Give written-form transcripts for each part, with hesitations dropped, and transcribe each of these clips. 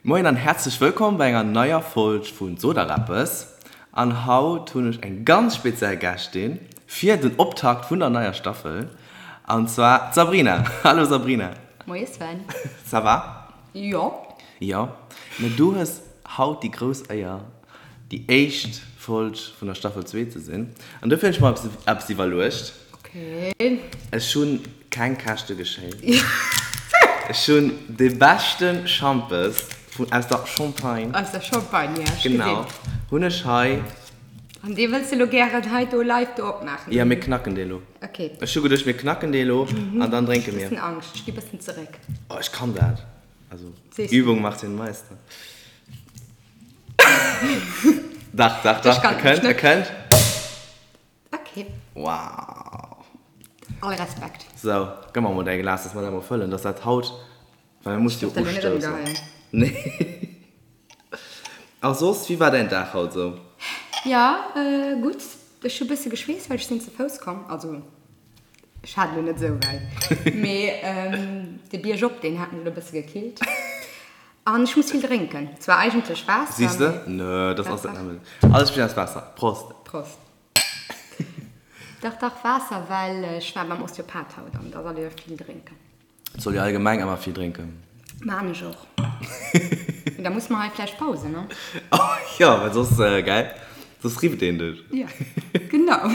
Moien an häerzlech wëllkomm bei enger neier Folg vun Sot der eppes. An haut hunn ech eng ganz speziell Gästin fir den Optakt vun der neier Staffel, an zwar d'Sabrina. Hallo Sabrina. Moie Sven. Ça va? Jo. Jo. Mä du hues haut déi grouss Éier, déi éischt Folg vun der Staffel 2 ze sinn. An dofir hunn ech mer eppes iwwerluecht. Okay. Ech hunn keng Käschte geschéit. Ech hunn de beschte Schampes vun, aus der Champagne. Aus der Champagne, ja, ech gesinn. Genau, hunn ech hei. An dee wëlls de lo gären hei do live do opmaachen? Ja, mir knacken dee lo. Okay. Ech hu geduecht, mir knacken dee lo an dann drénke mir. Ech hu bëssen Angscht, ech gi bëssen zeréck. Oh, ech kann dat. Also, Übung macht den Meister. Dach, dach, dach, e kënnt, e kënnt. Ok. Wow. All Respekt. Sou, gëmm mer mol däi Glas, dass mer dat mol fëllen, dass dat haut, well mir musse jo ustoussen. Nee. A soss, wéi war däin Dag haut sou? Jo, gutt. Ech hu bësse geschweesst, well ech sinn ze Fouss komm. Also, ech hat elo net esou wäit, mee de Bierg op, deen hat mech elo e bësse gekillt. An ech muss vill drénken. Zwar eigentlech Waasser. Siehs de? Nö, das ass net nëmmen. Alles besteet aus Waasser. Prost. Prost. Dach, dach, Waasser, well ech war beim Osteopath haut an da soll ee jo vill drénken. Et soll ee allgemeng ëmmer vill drénken. Maan ech och. Mee da muss mer hei vläicht pausen, ne? Jo, well soss, gell, soss rifft een dech. Jo, genau.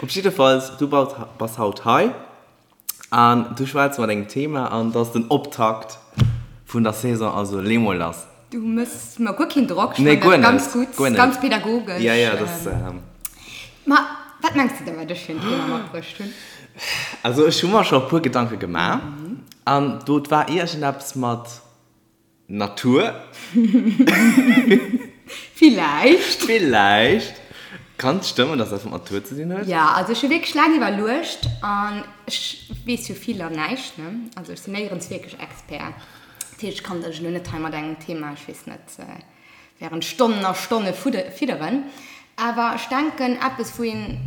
Op jiddefalls, du bass haut hei. An du schwätz mat engem Thema an dat ass den Optakt vun der Saison, also lee mol lass. Du mëss mer guer keen Drock, ech fannen dat ganz gutt, ganz pädagogesch. Ja, ja, dat. Ma wat mengs de da wat ech fir en Thema matbruecht hunn? Also ech hu mer scho e puer Gedanke gemaach an do war iergendeppes mat Natur. Villäicht. Villäicht. Kann et stëmmen, dass dat mat Natur ze dinn huet? Jo, also ech hu wierklech laang iwwerluecht an ech weess jo vill an näischt, ne? Also ech sinn néierens wierklech Expert. Dat heescht, ech kann dech elo net hei mat engem Thema, ech weess net, während Stonnen a Stonne fidderen. Awer ech denken, eppes wou een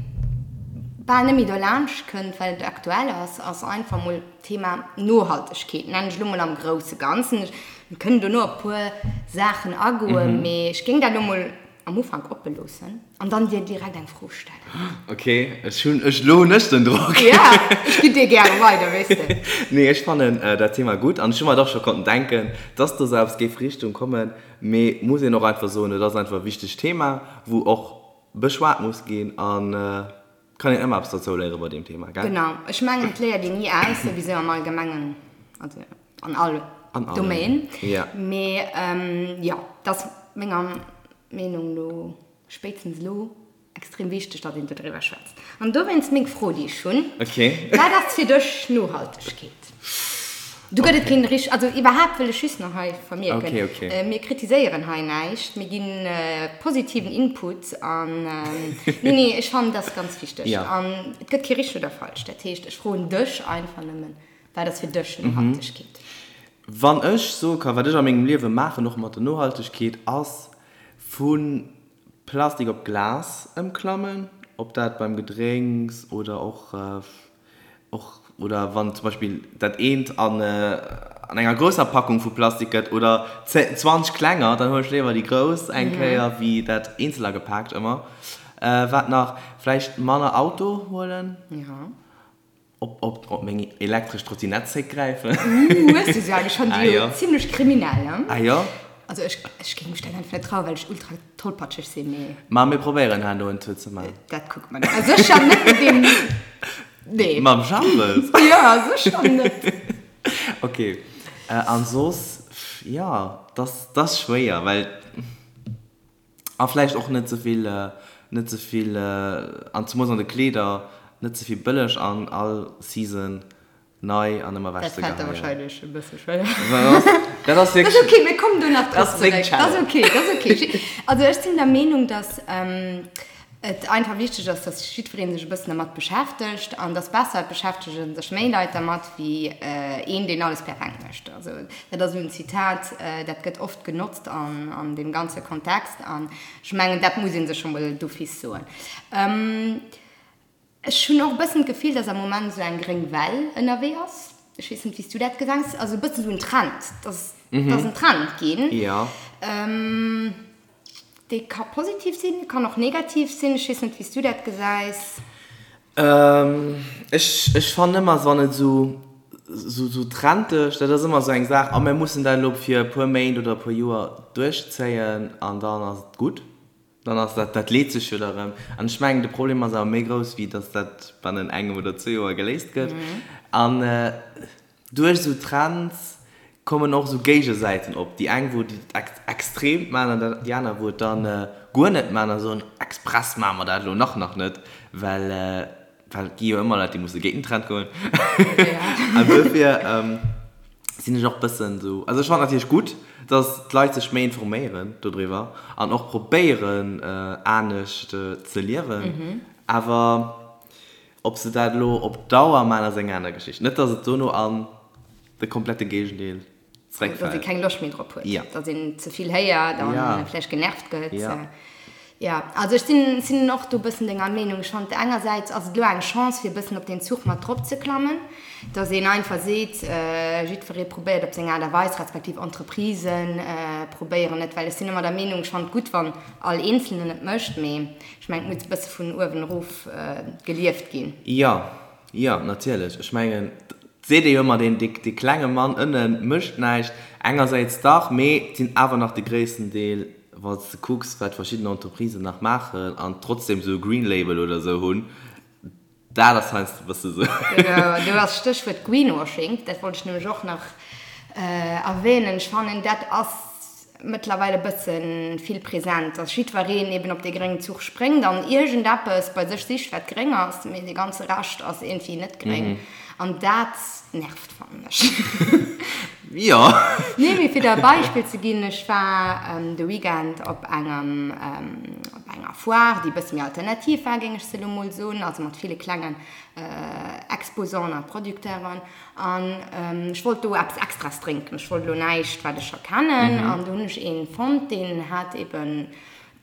bal net méi dolaanscht kënnt, well et aktuell ass, ass einfach mol d'Thema Nohaltegkeet, nennen ech elo mol am grousse Ganzen. Mir kënnen dono op e puer Saachen agoen, mee ech géing dat elo mol am Ufank oppe loossen an dann dir direkt eng Fro stellen. Ok, ech hunn, ech, elo hunn ech den Drock. Ja, ech ginn dir gäre weider, weess de. Nee, ech fannen dat Thema gutt an ech hu mer et och scho konnten denken, dass do sou eppes géif Richtung kommen. Mee muss een och einfach soen, et ass einfach e wichtegt Thema, wou och beschwat muss ginn an et kann een ëmmer eppes dozou léiere bei deem Thema, gell? Genau, ech mengen et léiert een ni aus, souwisou am Allgemengen, also an all Domaine. Mee jo, et ass menger Meenung no spéitstens elo Extrem wichteg, datt een dodriwwer schwätzt. An dowéinst meng Fro, déi ech hunn, Wat ass fir dech Nohaltegkeet? Do gëtt et keen richt-, also iwwerhaapt wëll ech just nach hei vermierken, mir kritiséieren hei näischt, mir gi positiven Input an, nee, nee, ech fannen, dat ass ganz wichteg. An et gëtt kee richteg oder falsch. Dat heescht, ech froen dech einfach nëmmen, Wat ass fir dech Nohaltegkeet? Wann ech soe kann, wat ech a mengem Liewe maachen, och mat der Nohaltegkeet, ass vu Plastik op Glas ëmklammen, ob dat beim Gedrénks oder och och oder wann zum Beispill dat eent an an enger grousser Packung vu Plastik gëtt oder 20 klenger, dann huelen ech léiwer déi grouss eng Kéier wéi dat eenzel agepaakt ëmmer. Wat nach? Vläicht manner Auto huelen. Op, op, op meng elektresch Trottinett zréckgräifen. Ooh, hues du se eigentlich schon? Ah, Déi jo. zimlech kriminell, ne? Ah jo? Also ech, ech géing mech dat einfach net trauen, well ech ultra tollpatscheg sinn, mee. Ma mir probéieren herno en Tour ze man. Dat kucke mer dann. Ah, sécher net mat deem, nee. Mam Jambes? Ja, sécher net. Ok, an soss, jo, dass, dass schwéier, well. A vläicht och net ze vill, net ze vill, an zemools an de Kleeder, net ze vill bëlleg an all Season nei an ëmmer ewech ze Dat fält der geheien. wahrscheinlech e bësse schwéier. Dat ass Dat ass wierklech. ok, mir kommen do nach Dat drop ass meng zeréck. Dat ass Challenge. ok, dat ass ok. Also ech sinn der Meenung, dass et einfach wichteg ass, dass jiddweree sech e bëssen dermat beschäftegt an dass besser et beschäftege sech méi Leit dermat wéi een, deen alles perfekt mécht. Also dat ass esou en Zitat, dat gëtt oft genotzt an deem ganze Kontext an ech mengen, dat muss ee sech scho mol d'office soen. Ech hunn och e bëssen d'Gefill, dass am Moment esou eng gréng Well ënnerwee ass. Ech weess net, wéi s du dat gesäis, also e bëssen esou en Trend, dass et ass en Trend ginn. Jo. Dee ka positiv sinn, kann och negativ sinn. Ech weess net, wéi s du dat gesäis. Ech, ech fannen ëmmer, wann et esou, esou, esou trendeg, dat ass ëmmer esou eng Saach, a mir mussen dat elo fir e puer Méint oder e puer Joer duerchzéien an dann ass et gutt. Dann ass dat, dat leet sech jo da rëm. An ech mengen, de Problem ass awer méi grouss, wéi datt dat bannen engem oder zwee Joer geléist gëtt. An duerch esou Trends kommen och esou Géigesäiten op. Déi eng, wou et extrem maachen an déi aner, wou et dann guer net maachen a soen, express maache mer dat elo nach nach net, well, well et gi jo ëmmer Leit, déi musse géint den Trend goen. An dofir sinn ech och bëssen esou, also ech fannen natierlech gutt, dass d'Leit sech méi informéieren dodriwwer an och probéieren anescht ze liewen, awer ob se dat elo op Dauer maachen, ass eng aner Geschicht. Net, dass et dono an de komplette Géigendeel zeréckfält. Dass ee keng Loscht méi drop huet, dass een ze vill héiert a vläicht genervt gëtt. Jo, also ech sinn, sinn och do e bëssen denger Meenung. Ech fannen, engersäits ass et elo eng Chance, fir e bëssen op deen Zuch mat drop ze klammen, dass een einfach seet, jiddweree probéiert op seng Aart a Weis, respektiv Entreprisen probéieren et, well ech sinn ëmmer der Meenung, ech fannen et gutt, wann all Eenzelnen et mécht, mee ech mengen, et muss e bësse vun uewen erof gelieft ginn. Jo, jo, natierlech. Ech mengen, et seet ee jo ëmmer, deen, dee klenge Mann ënne mécht näischt. Engersäits dach, mee et sinn awer nach de gréissten Deel Wann s de kucks, wat verschidden Entreprisen nach maachen an trotzdem esou e Green Label oder esou hunn, dat ass heiansdo e bësse esou. Genau, do ass Stéchwuert Greenwashing, dat wollt ech nämlech och nach erwähnen. Ech fannen, dat ass mëttlerweil e bësse vill present, dass jiddwereen eben op dee gréngen Zuch spréngt an iergendeppes bei sech sicht, wat gréng ass, mee dee ganze Rescht ass iergendwéi net gréng. An dat nervt. Fannen ech. Jo. Nee, mee fir der e Beispill ze ginn, ech war de Weekend op engem, op enger Foire, déi e bësse méi alternativ war, géing ech se elo mol soen, also mat ville klengen Exposanten a Producteuren. An ech wollt do eppes Extraes drénken. Ech wollt elo näischt, wat ech scho kennen. An do hunn ech een fonnt, deen hat eben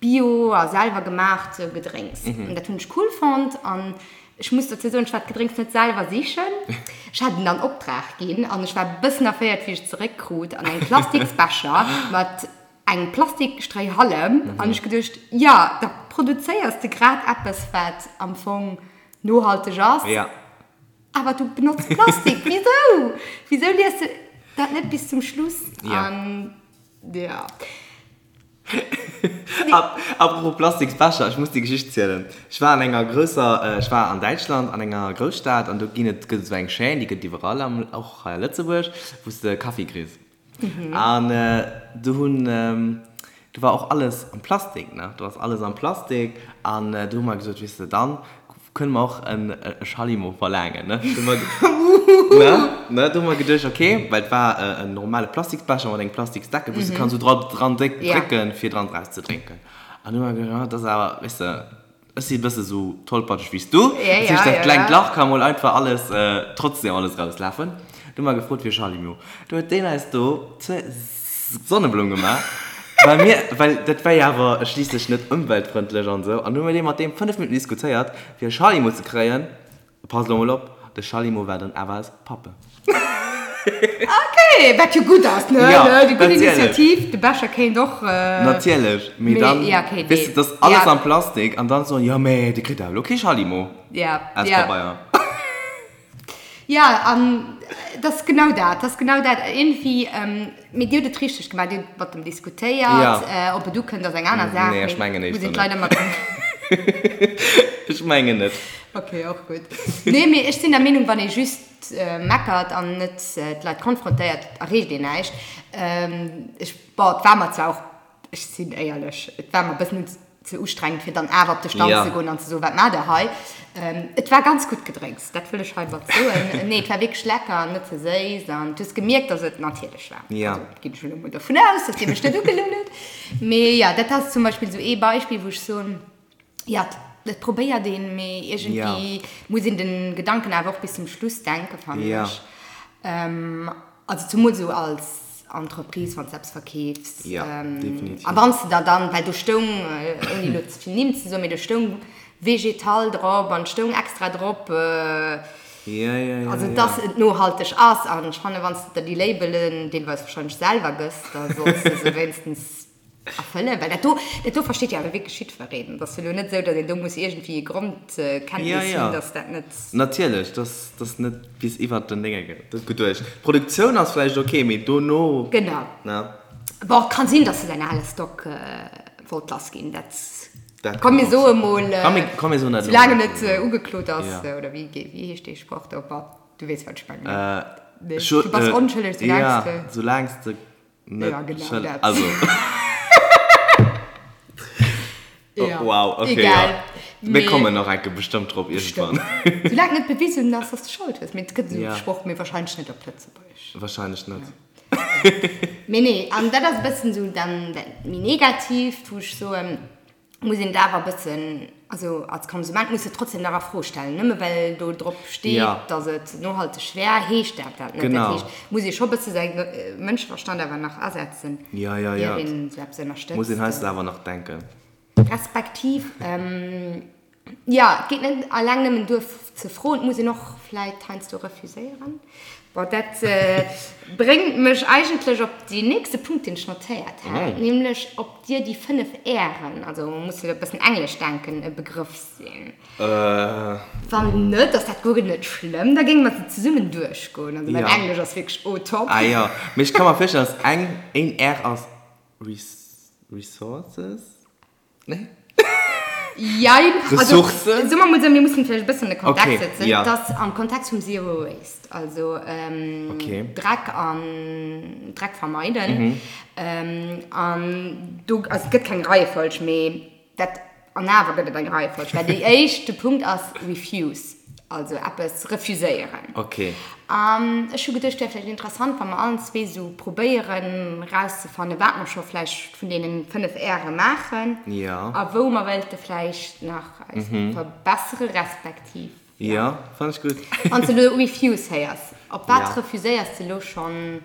Bio a selwer gemaacht Gedrénks. An dat hunn ech cool fonnt. An ech muss dozou soen, ech war d'Gedrénks net selwer sichen. Ech hat en an Optrag ginn an ech war e bëssen erféiert, wéi ech et zeréckkrut an engem Plastiksbecher mat engem Plastikstréihallem. An ech geduecht, jo, da produzéiers de grad eppes, wat am Fong nohalteg ass, awer du benotz Plastik. Wisou? Wisou lies de dat net bis zum Schluss? An jo. Apropos Plastiksbecher, ech muss déi Geschicht zielen. Ech war an enger grousser, ech war an Däitschland an enger Grousstad an do ginn et, gëtt et esou eng Chaîne, déi gëtt et iwwerall am, och hei a Lëtzebuerg, wou s de Kaffi kriss. An do hunn, do war och alles am Plastik, ne, do ass alles am Plastik an do hu mer gesot, weess de, dann Kënne mer och e Schallimo verlaangen, ne? Ne? Ne? Do hu mer geduecht, okay, well et war en normale Plastiksbecher mat engem Plastiksdeckel, wou s de kanns esou dra dran drécken, fir dran draus ze drénken. An du hu mer geduecht, ah, dat ass awer, weess de, ech si e bësse sou tollpatscheg wéi s du, dat heescht, dat klengt Lach ka mol einfach alles, trotzdem alles rauslafen. Du hu mer gefrot fir e Schallimo. Du huet deen eis do zur Sonneblumm gemaach, well mir, well dat war jo awer schliisslech net ëmweltfrëndlech an esou, an hu mir dee mat deem 5 Minutten diskutéiert, fir e Schallimo ze kréien. Pass elo mol op, de Schallimo war dann awer aus Pappe. Ok, wat jo gutt ass, ne? Jo, Déi gutt Initiativ, de Becher kéint och. Natierlech, mee dann, weess de, dat ass alles am Plastik an dann soen, jo, mee dir kritt awer elo kee Schallimo aus Pabeier. Jo, an et ass genau dat, et ass genau dat. Iergendwéi, mee Dir hutt et richteg gemaach, Dir hutt mat em diskutéiert. Ob et ukënnt, ass eng aner Saach. Nee, ech mengen éischter net. Ech mengen net. Ok, och gutt. Nee, mee ech sinn der Meenung, wann ee just meckert an net d'Leit konfrontéiert, erreecht een näischt. Ech, bon, et war mer zwar och Ech sinn éierlech, et war mer e bëssen ze ustrengend, fir dann awer op de Stand ze goen an ze soen, Wat maacht Der hei? Et war ganz gutt Gedrénks, dat wëll ech heimat soen. Nee, et war wierklech lecker an net ze séiss an du hues gemierkt, dass et natierlech war. Also ginn ech elo mol dovun aus, dass Dir mech net ugelunn hutt. Mee jo, dat ass zum Beispill esou ee Beispill, wou ech soen, Jo, et probéiert een, mee iergendwéi muss een de Gedanken awer och bis zum Schluss denken, fannen ech. Also zumools esou als Entreprise, wann s de eppes verkeefs. A wann s de der dann, well do stoung, ouni elo ze vill Nimm ze soen, mee do stoung Végétal drop an et stoung extra drop. Ja, ja, ja, Also ja. dass et nohalteg ass. An ech fannen, wann s de der déi Labelen deelweis wahrscheinlech selwer gëss, da solls de se wéinstens erfëllen. Well dat do, dat do versteet jo awer wierklech jiddwereen. Et ass jo elo net esou, datt een do muss iergendwéi e Grondkenntnis Ja, ja. hunn, dass dat net. Natierlech, dass dass net bis iwwert den Dénge geduecht. D'Produktioun ass vläicht ok, mee dono. Genau. Ne? Bon, kann sinn, dass se säin ale Stock wollt lass ginn. Dat Dat komm mir kann soe och mol, Komm mir, komm mir soen dat elo soulaang en net. net ugeklot ass, Ja. oder wéi wéi heescht dee Sproch do? Bon, du weess, wat ech mengen, ne? Äh, Nee, scho, du bass äh, onschëlleg, soulaang ja, s de. soulaang s de net Ja, genau schëll, dat. also. Oh, Ja, wow, okay, egal. ja. Mir Mee kommen nach enke bestëmmt drop iergendwann. Bestimmt. Soulaang net bewisen ass, dass de Schold hues. Mee et gëtt esou Ja. Sproch, mee wahrscheinlech net op Lëtzebuergesch. Wahrscheinlech net. Mee nee, an dat ass e bëssen esou dann dat méi Negatiivt, wou ech soen, muss een et awer e bëssen, also als Konsument muss de trotzdem nach a Fro stellen. Nëmme well do drop steet, Ja. datt et nohalteg wär, heescht dat dat net. Dat Genau. heescht, muss ee scho e bësse säi Mënscheverstand awer nach asetzen, Ja, ja, ier ja. een esou eppes Muss een ënnerstëtzt. heiansdo awer nach denken. Respektiv, jo, et geet net alleng nëmmen duer ze froen, et muss een och vläit heiansdo refuséieren. Bon, dat bréngt mech eigentlech op deen nächste Punkt, deen ech notéiert hat, nämlech ob dir déi 5 Ären, also muss e bëssen englesch denken, e Begrëff sinn. Wann net, ass dat guer net schlëmm, da géinge mer se zesummen duerchgoen. Also mäin Englesch ass wierklech au top. Ah jo, mee ech ka mer virstellen, dass eng, een R ass Resources? Nee? Jein. Also, Ressourcen? soe mer mol esou, mir mussen vläicht e bëssen de Kontext Okay, setzen. ja. Et ass am Kontext vum Zero Waste, also ähm, Okay. Dreck an Dreck vermeiden. Mhm. Ähm, an do, also et gëtt keng Reiefolg, mee dat An awer gëtt et eng Reiefolg, well déi éischt, de Punkt ass refuse, also eppes refuséieren. Ok. An ech hu geduecht, wär vläicht interessant, wa mer allen zwee esou probéieren erauszefannen, wat mer scho vläicht vun deenen 5 Äre maachen Ja. a wou mer wéilte vläicht nach eis verbessere respektiv, ja. Jo, fannen ech gutt. Wann s de elo refuse héiers, op wat Ja. refuséiers de elo schonn?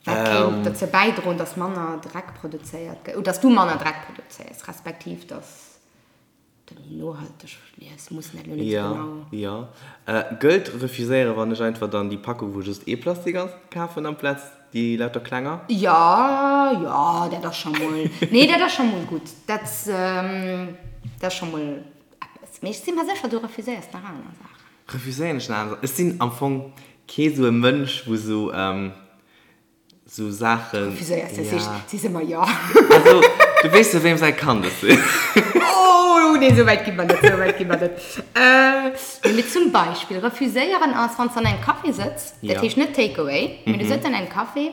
Wat kéint dozou bäidroen, dass manner Dreck produzéiert gëtt, oder dass du manner Dreck produzéiers, respektiv dass de méi nohalteg liefs? Muss net elo net esou genau. Jo, jo. Gëllt refuséieren, wann ech einfach dann déi Packung, wou just ee Plastik ass, kafen amplaz déi lauter klenger? Jo, jo, dat ass scho mol, nee, dat ass scho mol gutt. Dat, dat ass scho mol eppes. Mee ech si mer sécher, du refuséiers nach aner Saachen. Refuséieren ech nach aner Saachen? Ech sinn am Fong kee sou e Mënsch, wou sou, Sou Saachen. Refuséiers du, Ja. sees ëmmer jo. Also, du weess jo, weem säi Kand ech sinn. Oh, nee, sou wäit gi mer net, sou wäit gi mer net. Nee, mee zum Beispill refuséieren ass, wann s de an engem Café sëtz, dat Ja. heescht net Take away, mee du sëtz an engem Café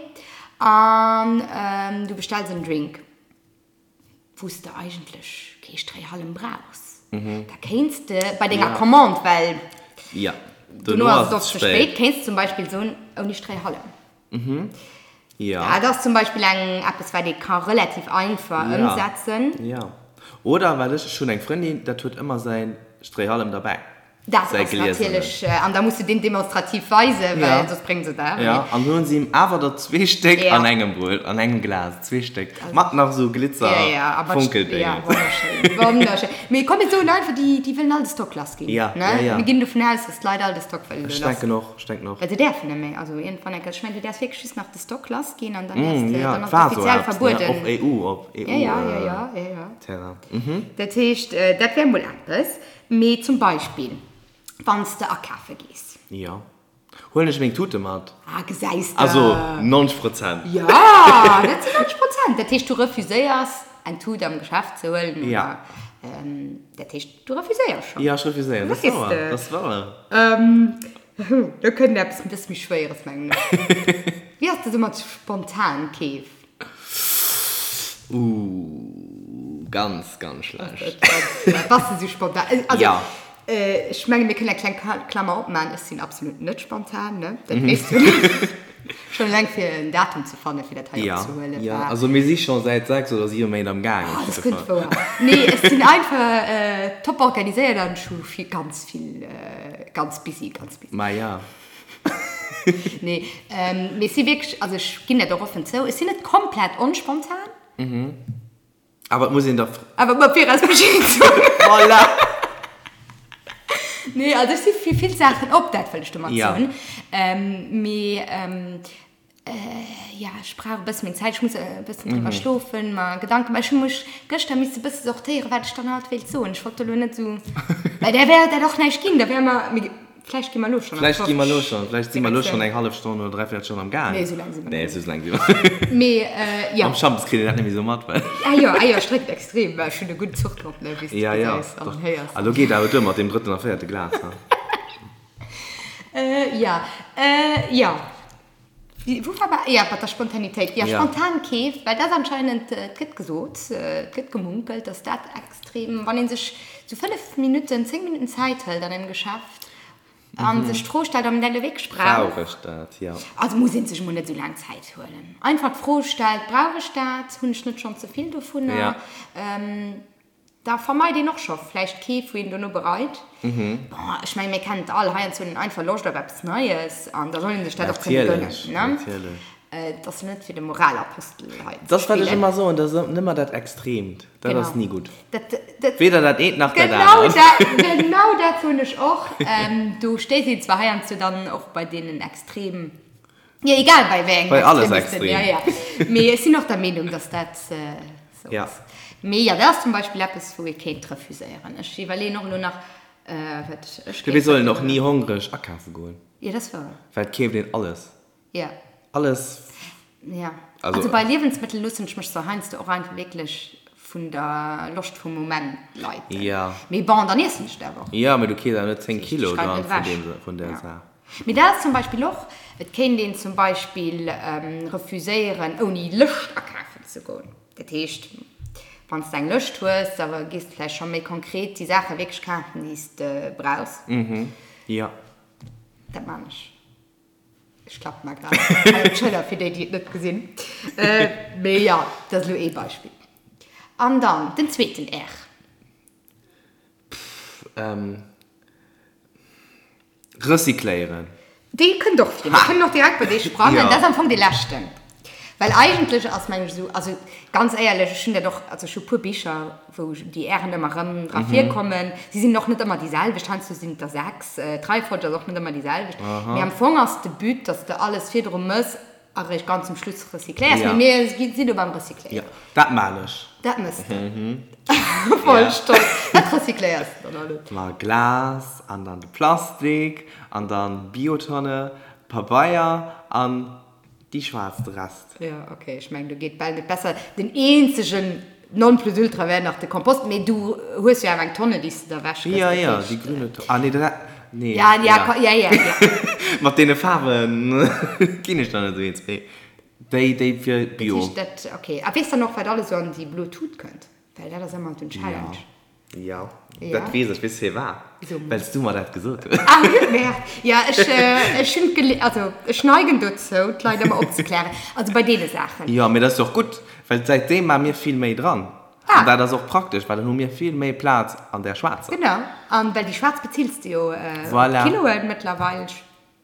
an du bestells en Drink. wou s de eigentlech kee Stréihallem brauchs, da kéints de bei denger Commande, well dono ass et oft ze spéit, kéints de zum Beispill soen, ouni Stréihallem. Dat ass zum Beispill eng eppes, wat ee ka relativ einfach ëmsetzen. Jo. Oder, well ech, ech hunn eng Frëndin, dat huet ëmmer säi Stréihallem derbäi. Dat ass natierlech, an da muss de deen demonstrativ weisen, well soss bréngt se et awer net. An hunn se him awer der zwee Stéck an engem bruecht, an engem Glas, zwee Stéck, mat nach esou Glitzer, Fonkeldéngen. Ja, wonnerschéin, wonnerschéin. Mee komm, mir soen einfach, déi, déi wëllen all de Stock lass ginn. Ja, ja, ja. Mir ginn dovun aus, dass d'Leit all de Stock wëllen Ech elo lass denken och, ech denken och. Well se däerfen net méi, also iergendwann eng Kéier, ech mengen, du däerfs wierklech just nach de Stock lass ginn an dann däerfs de, Ja, dann et ass et war esou offiziell eppes, ne, verbueden. och EU, op Ja, ja, ja, ja, ja, ja. EU-Terrain. Dat heescht, dat wär mol eppes. Mee zum Beispill, wann s de akafe gees. Jo. Huelen ech meng Tute mat. Ah, gesäis de. Also 90 Prozent. Jo, dat sinn 90 Prozent. Dat heescht, du refuséiers, eng Tut am Geschäft ze huelen. Jo. Dat heescht, du refuséiers schonn. Jo, ech refuséieren. Dat ass wouer. Dat ass wouer. Do kënnt eppes e bësse méi Schwéieres, mengen ech. Wéi ass dat esou mat Spontankeef? Ooh, ganz, ganz schlecht. Bass de sou spontan? Also, Ja. ech mengen, mir kënnen eng kleng Klammer opmaachen, ech sinn absolut net spontan, ne? Dat weess du. Schonn eleng fir en Datum ze fannen, fir dat hei Ja, opzehuelen, ja. war. Also mir si scho säit 6 oder 7 Méint am Gaang, Oh, op dat jidde kënnt Fall. wouer. Nee, ech sinn einfach top organiséiert an ech hu vill, ganz vill, ganz busy, ganz busy. Ma ja. Nee, mee ech si wierklech, also ech ginn dat och offen zou, ech sinn net komplett onspontan. Awer et muss een da. Awer mat viraus Bescheed soen. Voilà! Nee, also ech si fir vill Saachen op, dat wëll ech domat soen. Mee jo, ech brauch e bësse meng Zäit, ech muss e bëssen driwwer schlofen, mer Gedanken maachen. Ech hu mech gëschter misse e bësse sortéieren, wat ech dann haut wéilt soen. Ech wollt elo net esou, well da wär dat och näischt ginn, da wäre mer, mee vläicht gi mer elo schonn an Vläicht gi mer elo schonn, vläicht si mer elo schonn eng hallef Stonn oder dräivéierel Stonn am Gaang. Nee, esou laang si mer net. Nee, esou laang si mer net. Mee jo. Mam Schampes kritt een dat net méi esou mat, well. Ah jo, ah jo, ech drénken extrem, well ech hunn e gudden Zuch drop, ne, wéi s de gesäis an héiers. A lo geet awer duer mat deem drëtten a véierte Glas, ha. Jo, jo. Wou war mer? Jo, mat der Spontanitéit. Jo, spontan Keef, well dat ass anscheinend, et gëtt gesot, et gëtt gemunkelt, dass dat extrem, wann ee sech sou 5 Minutten, 10 Minutten Zäit hëlt an engem Geschäft a sech d'Fro stellt, ob een dat elo wierklech brauch. Brauch ech dat? Jo. Also muss ee sech emol net esou laang Zäit huelen. Einfach d'Fro stellt, Brauch ech dat? Hunn ech net schonn ze vill dovunner? Da vermeit een och scho vläicht Keef, wou een dono bereit. Bon, ech mengen, mir kennen et all, heiansdo huet een einfach Loscht op eppes Neies an da soll ee sech dat och kënne gënnen, ne? Natierlech. Et ass jo net fir de Moralapostel hei ze spillen. Dat ass, wat ech ëmmer soen, dat ass nëmmer dat Extreemt, dat ass ni gutt. Weder dat eent nach dat anert. Genau dat soen ech och. Do stéisst een zwar heiansdo dann och bei deenen Extrem, jo, egal bei wéi engem Bei alles Extremisten, extrem. Jo, jo. Mee ech sinn och der Meenung, dass dat Sou Ja. ass. Mee jo, dat ass zum Beispill eppes, wou ee kéint refuséieren. Ech iwwerleeën och elo nach, wat ech kéint Mir sollen och ni hongreg akafe goen. Jo, dat ass wouer. Well et keeft een alles. Jo. Alles. Jo. Also bei Liewensmëttel loossen ech mech zwar heiansdo och einfach wierklech vun der Loscht vum Moment leiten. Jo. Mee bon, dann iessen ech et awer och. Jo, mee du keefs awer net 10 Kilo dann vun deem, vun där Saach. Mee dat ass zum Beispill och, et kéint een zum Beispill refuséieren, ouni Lëscht akafen ze goen. Dat heescht, wann s de eng Lëscht hues, da gees de vläicht scho méi konkret déi Saache wierklech kafen, déi s de brauchs. Jo. Dat man ech. Ech klappe mer grad hei op d'Schëller, fir déi, déi et net gesinn. Mee jo, dat ass elo ee Beispill. An dann den zweeten R. Pff, Recycléieren. Dee kënnt och vir. Mir kënnen och direkt bei dee sprangen. Dat ass am Fong dee leschten. Well eigentlech ass, mengen ech, esou, also ganz éierlech, ech hunn dat och, also ech hu puer Bicher, wou déi Ären ëmmer erëm dra virkommen. Si sinn och net ëmmer déi selwecht, heiansdo sinn et der 6, d'Reifolg ass och net ëmmer déi selwecht. Mee am Fong ass de But, dass de alles virdru mëss A réischt ganz zum Schluss recycléiers. Ja. Mee mir sinn do beim Recycléieren. Ja, dat maan ech. Dat mëss de. Voll stolz. Wat recycléiers de dann alles? Ma Glas an dann de Plastik an dann Biotonne, Pabeier an déi schwaarz, de Rest. Ja, ok. Ech mengen, do geet bal net besser. Den eenzegen Nonplusultra wär nach de Kompost, mee du hues jo awer eng Tonne, déi s de da ewech gëss. Ja, ja, déi grüne Tonne. Ah, nee, dat, nee. Ja, ja, ja, ja, ja. Mat deene Faarwen ginn ech dann net esou eens, mee déi, déi fir Bio. Dat heescht, dat, ok. A weess dann och, wat alles esou an déi blo Tut kënnt? Well dat ass ëmmer den Challenge. Jo, dat weess ech. Weess firwat? Well s du mer dat gesot hues. Ah, merde. Ja, ech, ech hunn d'Gele-, also ech neigen dozou, d'Leit ëmmer opzeklären. Also bei deene Saachen. Jo, mee dat ass jo och gutt, well säitdeem maache mir vill méi dran. Ah. An dat ass och praktesch, well dann hu mir vill méi Plaz an där schwaarzer. Genau. An well déi schwaarz bezills de jo op Voilà. Kiloen mëttlerweil. Ech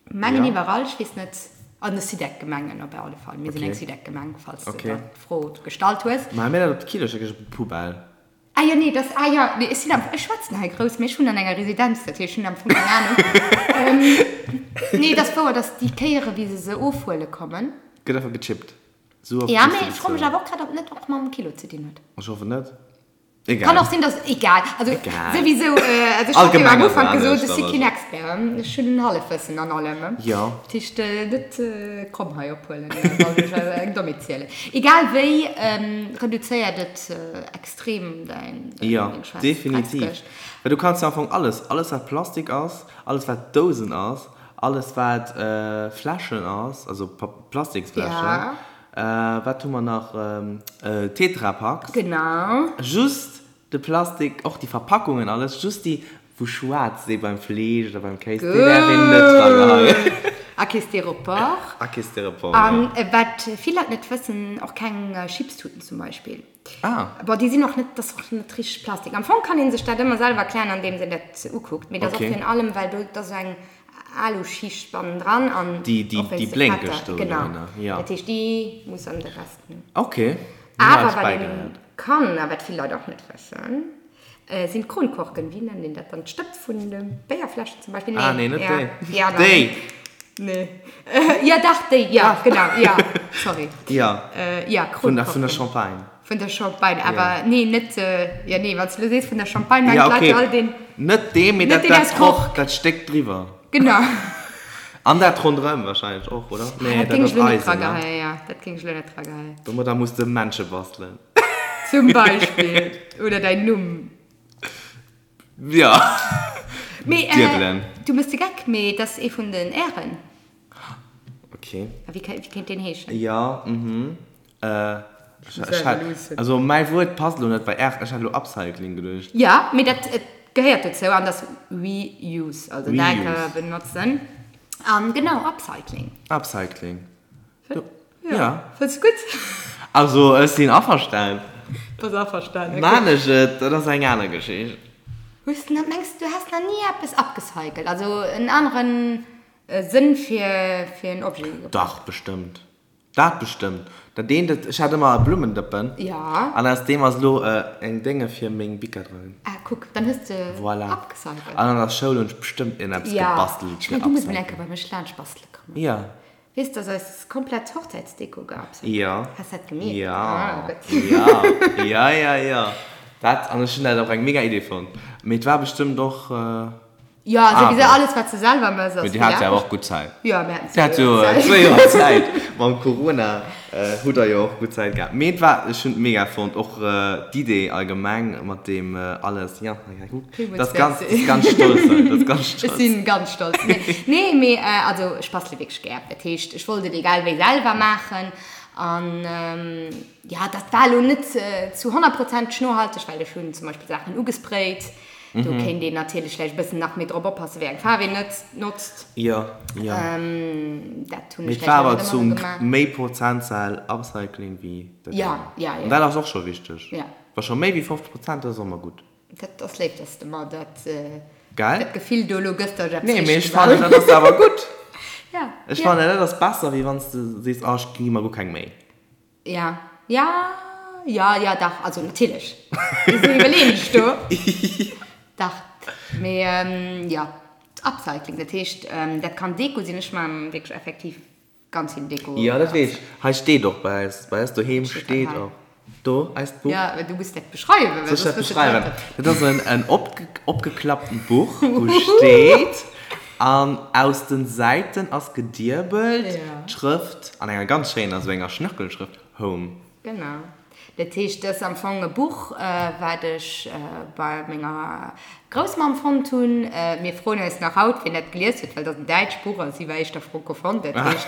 mengen Ja. iwwerall, ech weess net, an de Sidec-Gemengen op alle Fall. Mir sinn Okay. eng Sidec-Gemeng, falls de Okay. der d'Fro gestallt hues. Maache mir dat op d'Kilo? Ech op d'Poubelle. Ah jo, nee, dass, ah jo, nee, ech sinn am, ech schwätzen hei grouss, mee ech wunnen an enger Residenz, dat heescht, ech hunn am Fong keng Ahnung. Nee, et ass wouer, dass déi Kéiere wéi se se ofhuele kommen. Gëtt einfach gechippt. Sou oft Ja, muss mee de ech froe mech bezuelen. awer och grad, ob net och mam Kilo ze dinn huet. Ech hoffen net. Kann Egal. och sinn, dass, egal, also Egal. souwisou, also ech hat jo am Allgemeng ass Ufank et gesot, anescht, ech si aber keen so. Expert, ech hunn en Hallefwëssen an allem. Jo. Dat heescht, net kromm hei ophuelen, wann ech eng Dommheet zielen. Egal wéi, reduzéiert et extrem däin Jo, deng schwaarz definitiv. Dreckskëscht. Well du kanns jo am Fong alles, alles wat Plastik ass, alles wat Dousen ass, alles wat Fläschen ass, also Plastiksfläschen, Ja. wat hu mer nach, Tetrapacks. Genau. Just de Plastik, och déi Verpackungen, alles, just déi wou schwaarz si beim Fleesch oder beim Kéis, déi däerf een net dra geheien. Gutt! A kee Styropor. A kee Styropor, jo. An wat vill Leit net wëssen, och keng Chipstuten zum Beispill. Ah. Bon, déi sinn och net, dat ass och net richteg Plastik. Am Fong kann ee sech dat ëmmer selwer erklären, andeems een dat ukuckt. Mee dat ass och Okay. virun allem, well do, dat ass esou eng Aluschicht bannendran an Déi, déi, och déi wéinst de blénkeg Fetter. do Genau. dorënner, jo. Dat heescht, déi muss an de Rest. Okay. Awer wat ee Bäigeléiert. kann, a wat vill Leit och net wëssen. Sinn d'Kronkorken, wéi nennt een dat dann? D'Stëpp vun de Béierfläschen zum Beispill? Ah, nee, net déi. Déi aner. Déi! Nee. Jo, dach, déi, jo, genau, jo, sorry. Jo. Jo, Kronkorken. Vun der Champagne. Vun der Champagne, awer nee, net, jo, nee, wann s de elo sees vun der Champagne, mengen d'Leit jo all deen. Net dee, mee dat, dat Kork, dat Stéck driwwer. Genau. An dat ronderëm wahrscheinlech och, oder? Nee, dat ass Eisen, ne? Jo, dat géing ech elo net drageheien. Domadder muss de Männche bastelen. Zum Beispill. Oder däin Numm. Jo. Mee, äh, du mëss de Geck, mee et ass ee vun den Ären. Okay. A wéi, wéi kéint deen heeschen? Jo, mhm. Äh, ech hat, also mäi Wuert passt elo net bei Är, ech hat elo Upcycling geduecht. Jo, mee dat gehéiert dozou an dat ass Reuse, also dat ka benotzen. An genau, Upcycling. Upcycling. Ja. Fënns du gutt? Also ech sinn averstanen. Bass averstanen, okay. Maan ech et, dat ass eng aner Geschicht. Hues de, mengs du häss nach ni eppes upgecycelt, also en aneren Sënn fir fir en Objet gebraucht? Dach, bestëmmt. Dat bestëmmt. Dat eent, dat, ech hat ëmmer e Blummendëppen. Ja. An aus deem ass elo eng Dénge fir meng Bicker dran. Ah, kuck, dann hues de Voilà. upgecycelt. An an der Schoul hunn ech bestëmmt iergendeppes gebastelt fir upcycling. Ja, ech mengen, du muss mol eng Kéier bei mech laanscht bastele kommen. Ja. Weess dass eis komplett Hochzäitsdeko geupcycelt Jo. Has dat gemierkt? Jo. Ah, gutt. Jo, jo, jo, jo. Dat, an ech hunn dat och eng mega Idee fonnt. Mee et war bestëmmt och Jo, souwisou alles wat s de selwer mëss ass Mee dir hat jo awer och gutt Zäit. Jo, mir haten Dir hat jo zwéi Joer Zäit. Mam Corona hutt der jo och gutt Zäit gehat. Mee et war, ech hunn et mega fonnt, och d'Idee allgemeng mat deem alles, jo. Villmools Das ganz, merci. das ganz stolz sein. Das ganz Ech stolz. sinn ganz stolz. Nee, mee also ech bastele wierklech gär. Dat heescht, ech wollt et egal wéi selwer maachen. An jo, dat war elo net zu honnertprozenteg nohalteg, well ech hunn zum Beispill Saachen ugesprayt. Do kéint een natierlech vläicht e bëssen nach méi drop oppassen, wéi eng Faarf een net notzt. Jo, jo. Dat hunn Mee ech et war vläicht awer net ëmmer zum esou gemaach. méi Prozentzahl Upcycling wéi dat Ja, anert. ja, ja. An dat ass och scho wichteg. Ja. Wa scho méi wéi 50 Prozent, dat ass och ëmmer gutt. Dat ass léif, dass de mer dat, Gell? dat Gefill do elo gëss, dass ech eppes Nee, mee richteg ech fannen, gemaach dat ass awer gutt. Ja, Ech ja. fannen, dat ass besser, wéi wann s de sees, oh, ech gi mer guer keng Méi. Ja, ja, ja, ja, dach, also natierlech. Wisou iwwerleeën ech do? Dach, mee jo, Upcycling, dat heescht, dat kann Deko sinn. Ech maachen wierklech effektiv Ganz vill Deko. Jo, dat weess ech. Hei steet och bei eis, bei eis doheem steet och do eist Buch. Jo, du muss dat beschreiwen. Soll ech dat beschreiwen? Dat ass en en opgeklapptent Buch, wou steet, an aus den Säiten ass gediebelt d'Schrëft, an enger ganz schéiner, esou enger Schnörkelschrëft, Home. Genau. Dat heescht, dat ass am Fong e Buch, wat ech bei menger Groussmamm fonnt hunn. Mir froen eis nach haut, wien dat gelies huet, well dat ass en däitscht Buch a si war éischter francophone. Dat heescht,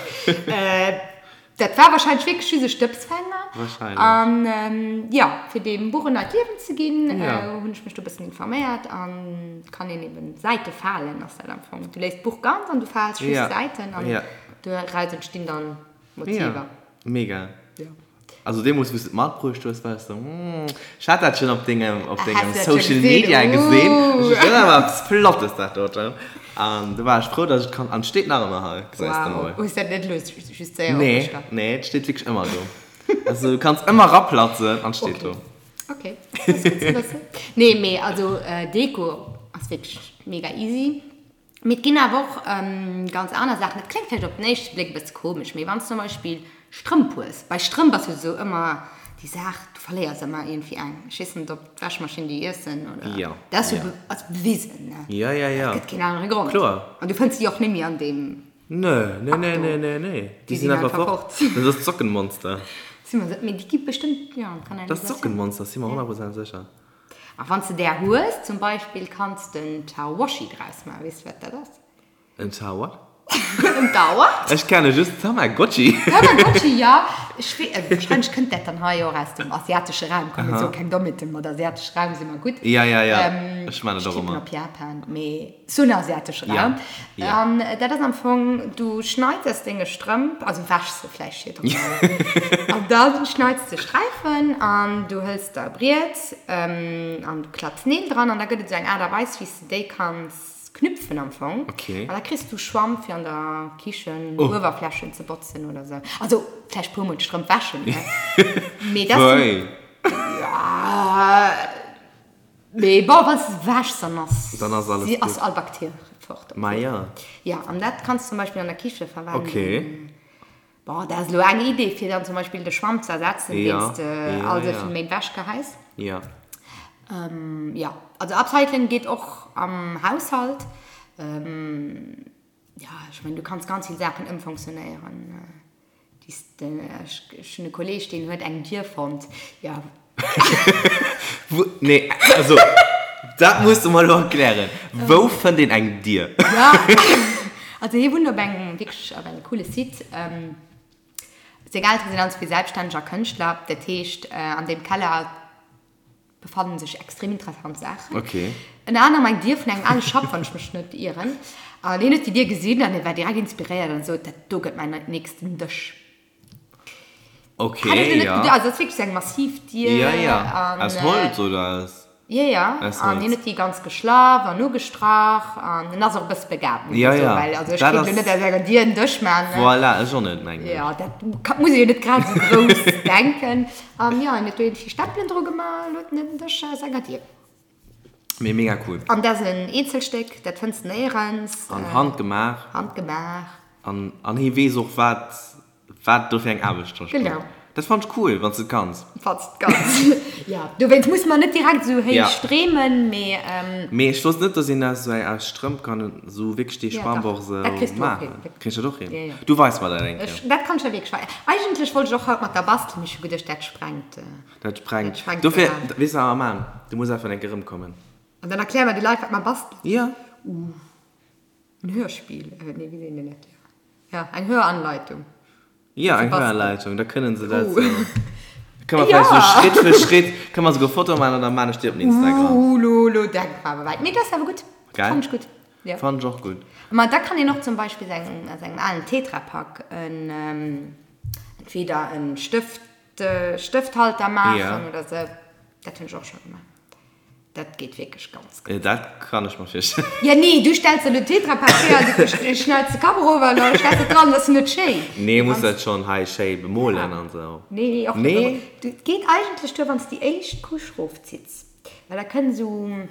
dat war wahrscheinlech wierklech just e Stëbsfänger. Wahrscheinlech. An jo, fir deem Buch en neit Liewen ze ginn, hunn ech mech do e bëssen informéiert an et kann een eben Säite falen, ass dat am Fong. Du léiss d'Buch ganz an du faals just d'Säiten an doraus entstinn dann Motiver. Ja, mega. Ja. Also deemols wous de et matbruecht hues, war ech sou, hmm, ech hat dat schon op dengem, op dengem Social Media gesinn. Ech dat ass awer eppes Flottes dat doten. An du war ech frou, dass ech et kann, an et steet nach ëmmer hei, gesäis de mol. Wow, hues dat net elo just séier Nee, nee, et steet wierklech ëmmer do. Also du kanns ëmmer raplatzen an et steet do. Ok, dat ass gutt ze wëssen. Nee, mee also Deko ass wierklech mega easy. Mee et ginn awer och ganz aner Saachen. Dat kléngt vläicht op den éischte Bléck e bësse komesch, mee wann s de zum Beispill Strëmp hues, bei Strëmp ass jo esou ëmmer déi Saach, du verléiers ëmmer iergendwéi eng. Ech weess net, ob d'Wäschmaschinn déi iessen oder. Jo. Dat ass jo be ass bewisen, ne? Jo, jo, jo. Et gëtt keen anere Grond. Kloer. An du fënns déi och net méi an deem Nö, nö, nö, nö, nö, nö. Déi sinn einfach fort. Dat ass d'Sockenmonster. Si mer se, mee déi gi bestëmmt, jo, an d'Kanalisatioun. Dat ass d'Sockenmonster, si mer 100 Prozent sécher. A wann s de där hues, zum Beispill, kanns de en Tawashi draus maachen. Weess de, wat dat ass? En Ta what? En Ta what? Ech kenne just Tamagotchi. Tamagotchi, jo. Ech wee, wahrscheinlech kënnt dat dann hei och aus dem asiatesche Raum. Komm, mir soe keng Dommheeten, mat asiatesche Raum si mer gutt. Ja, ja, ja. Ech man et och Ech tippen ëmmer. op Japan, mee sou en asiatesche Raum. Ja. An dat ass am Fong, du schneits aus denge Strëmp, also wäschs se vläicht virdrun, an da schneits de Sträifen an du hëls der e Briet an du klapps Neel dran an da gëtt et esou eng Aart a Weis, wéi s de déi kanns knüpfen am Fong. Okay. An da kriss du Schwamm fir an der Kichen Uewerflächen ze botzen oder sou. Also vläicht puer mol d'Strëmp wäschen, ne? Mee dat sinn. Wei? Ja. Mee bon, wann s de se wäschs, dann ass, Dann ass alles ass gutt. all Bakterie fort. Ma jo. Jo, an dat kanns de zum Beispill an der Kiche verwenden. Okay. Bon, dat ass elo eng Idee, fir dann zum Beispill de Schwamm ze ersetzen, Ja, deen s de ja, all esou ja. vill Méint wäsch geheis. Ja. Jo, also Upcycling geet och am Haushalt. Jo, ech mengen, du kanns ganz vill Saachen ëmfonctionnéieren. Ech hunn e Kolleeg, deen huet eng Dier fonnt. Jo. Wou, nee, also, dat muss de mer elo erklären. Wou fënnt een eng Dier? Jo, also hie wunnt op engem, wierklech op engem coole Site. Seng Eltere sinn allenzwee Selbststänneg a Kënschtler. Dat heescht, an deem Keller befannen sech extrem interessant Saachen. Okay. Ënner anerem eng Dier vun engem ale Schapp, wann ech mech net ieren. An hien huet déi Dier gesinn an hie war direkt inspiréiert an sot, dat do gëtt mäin nächsten Dësch. Okay, Hätt ech lo net ja. geduecht. Also dat ass wierklech sou eng massiv Dier. Ja, ja. An, Aus Holz oder aus? Jo, jo. Aus An Holz. hien huet déi ganz geschlaff an ugestrach an en ass och e bësse begabt, muss Ja, ech soen, ja. well also ech Dat kéint lo ass. net aus enger Dier en Dësch maachen, ne? Voilà, ech och net, mengen ech. Jo, dat ka, muss ee jo net grad esou grouss denken. An jo, en huet do iergendwéi Stempelen dru gemaach an huet en en Dësch aus enger Dier. Mee mega cool. An dat ass en Eenzelstéck, dat fënns de néierens. An handgemaach. Handgemaach. An, an hie weess och wat Wat do fir eng Aarbecht dra steet. Genau. Dat fannt ech cool, wann s de et kanns. Wann s de et kanns. Jo, dowéinst muss mer net direkt esou héich Ja. dreemen, mee. Mee ech wosst net, dass een aus esou eng, aus Strëmp kann esou wierklech dee Ja, dach. Schwamp och esou Dat kriss du och maachen. hin. Kriss ech dat och hin? Ja, ja. Du weis mer dat eng Kéier. Ech, dat kann ech der wierklech weisen. Eigentlech wollt ech och haut mat der bastelen, mee ech hu geduecht, dat sprengt. Dat sprengt. Dat sprengt Dofir, de Rahmen. weess de wat mer maachen? Du muss einfach eng Kéier erëmkommen. An dann erkläre mer de Leit, wat mer bastelen. Ja. En Hörspiel, nee, wéi seet een dat? Ja, eng Höranleitung. Ja, eng Höranleitung, da kënnen se dat sou. Kënne mer vläicht sou Schritt fir Schritt, kënne mer souguer Fotoe maachen an da maan ech déi op den Instagram. Uh, lo, lo denke mer awer wäit. Mee dat ass awer gutt. Gell? Fannen ech gutt. Ja. Fannen ech och gutt. Ma da kann een och zum Beispill seng, aus engem alen Tetrapack en, entweder en Stëft, Stëfthalter maachen oder sou. Dat hunn ech och scho gemaach. Dat geet wierklech ganz gutt. Dat kann ech mer virstellen. Ja nee, du stells elo Tetra Pak hier an du schneids de Kapp erof an da stells de dran, dat ass net schéin. Nee, muss dat schonn hei schéi bemolen an esou. Nee, och net. Nee? Et geet eigentlech duer, wann s de déi éischt Couche rofzitts, well da kënnt esou e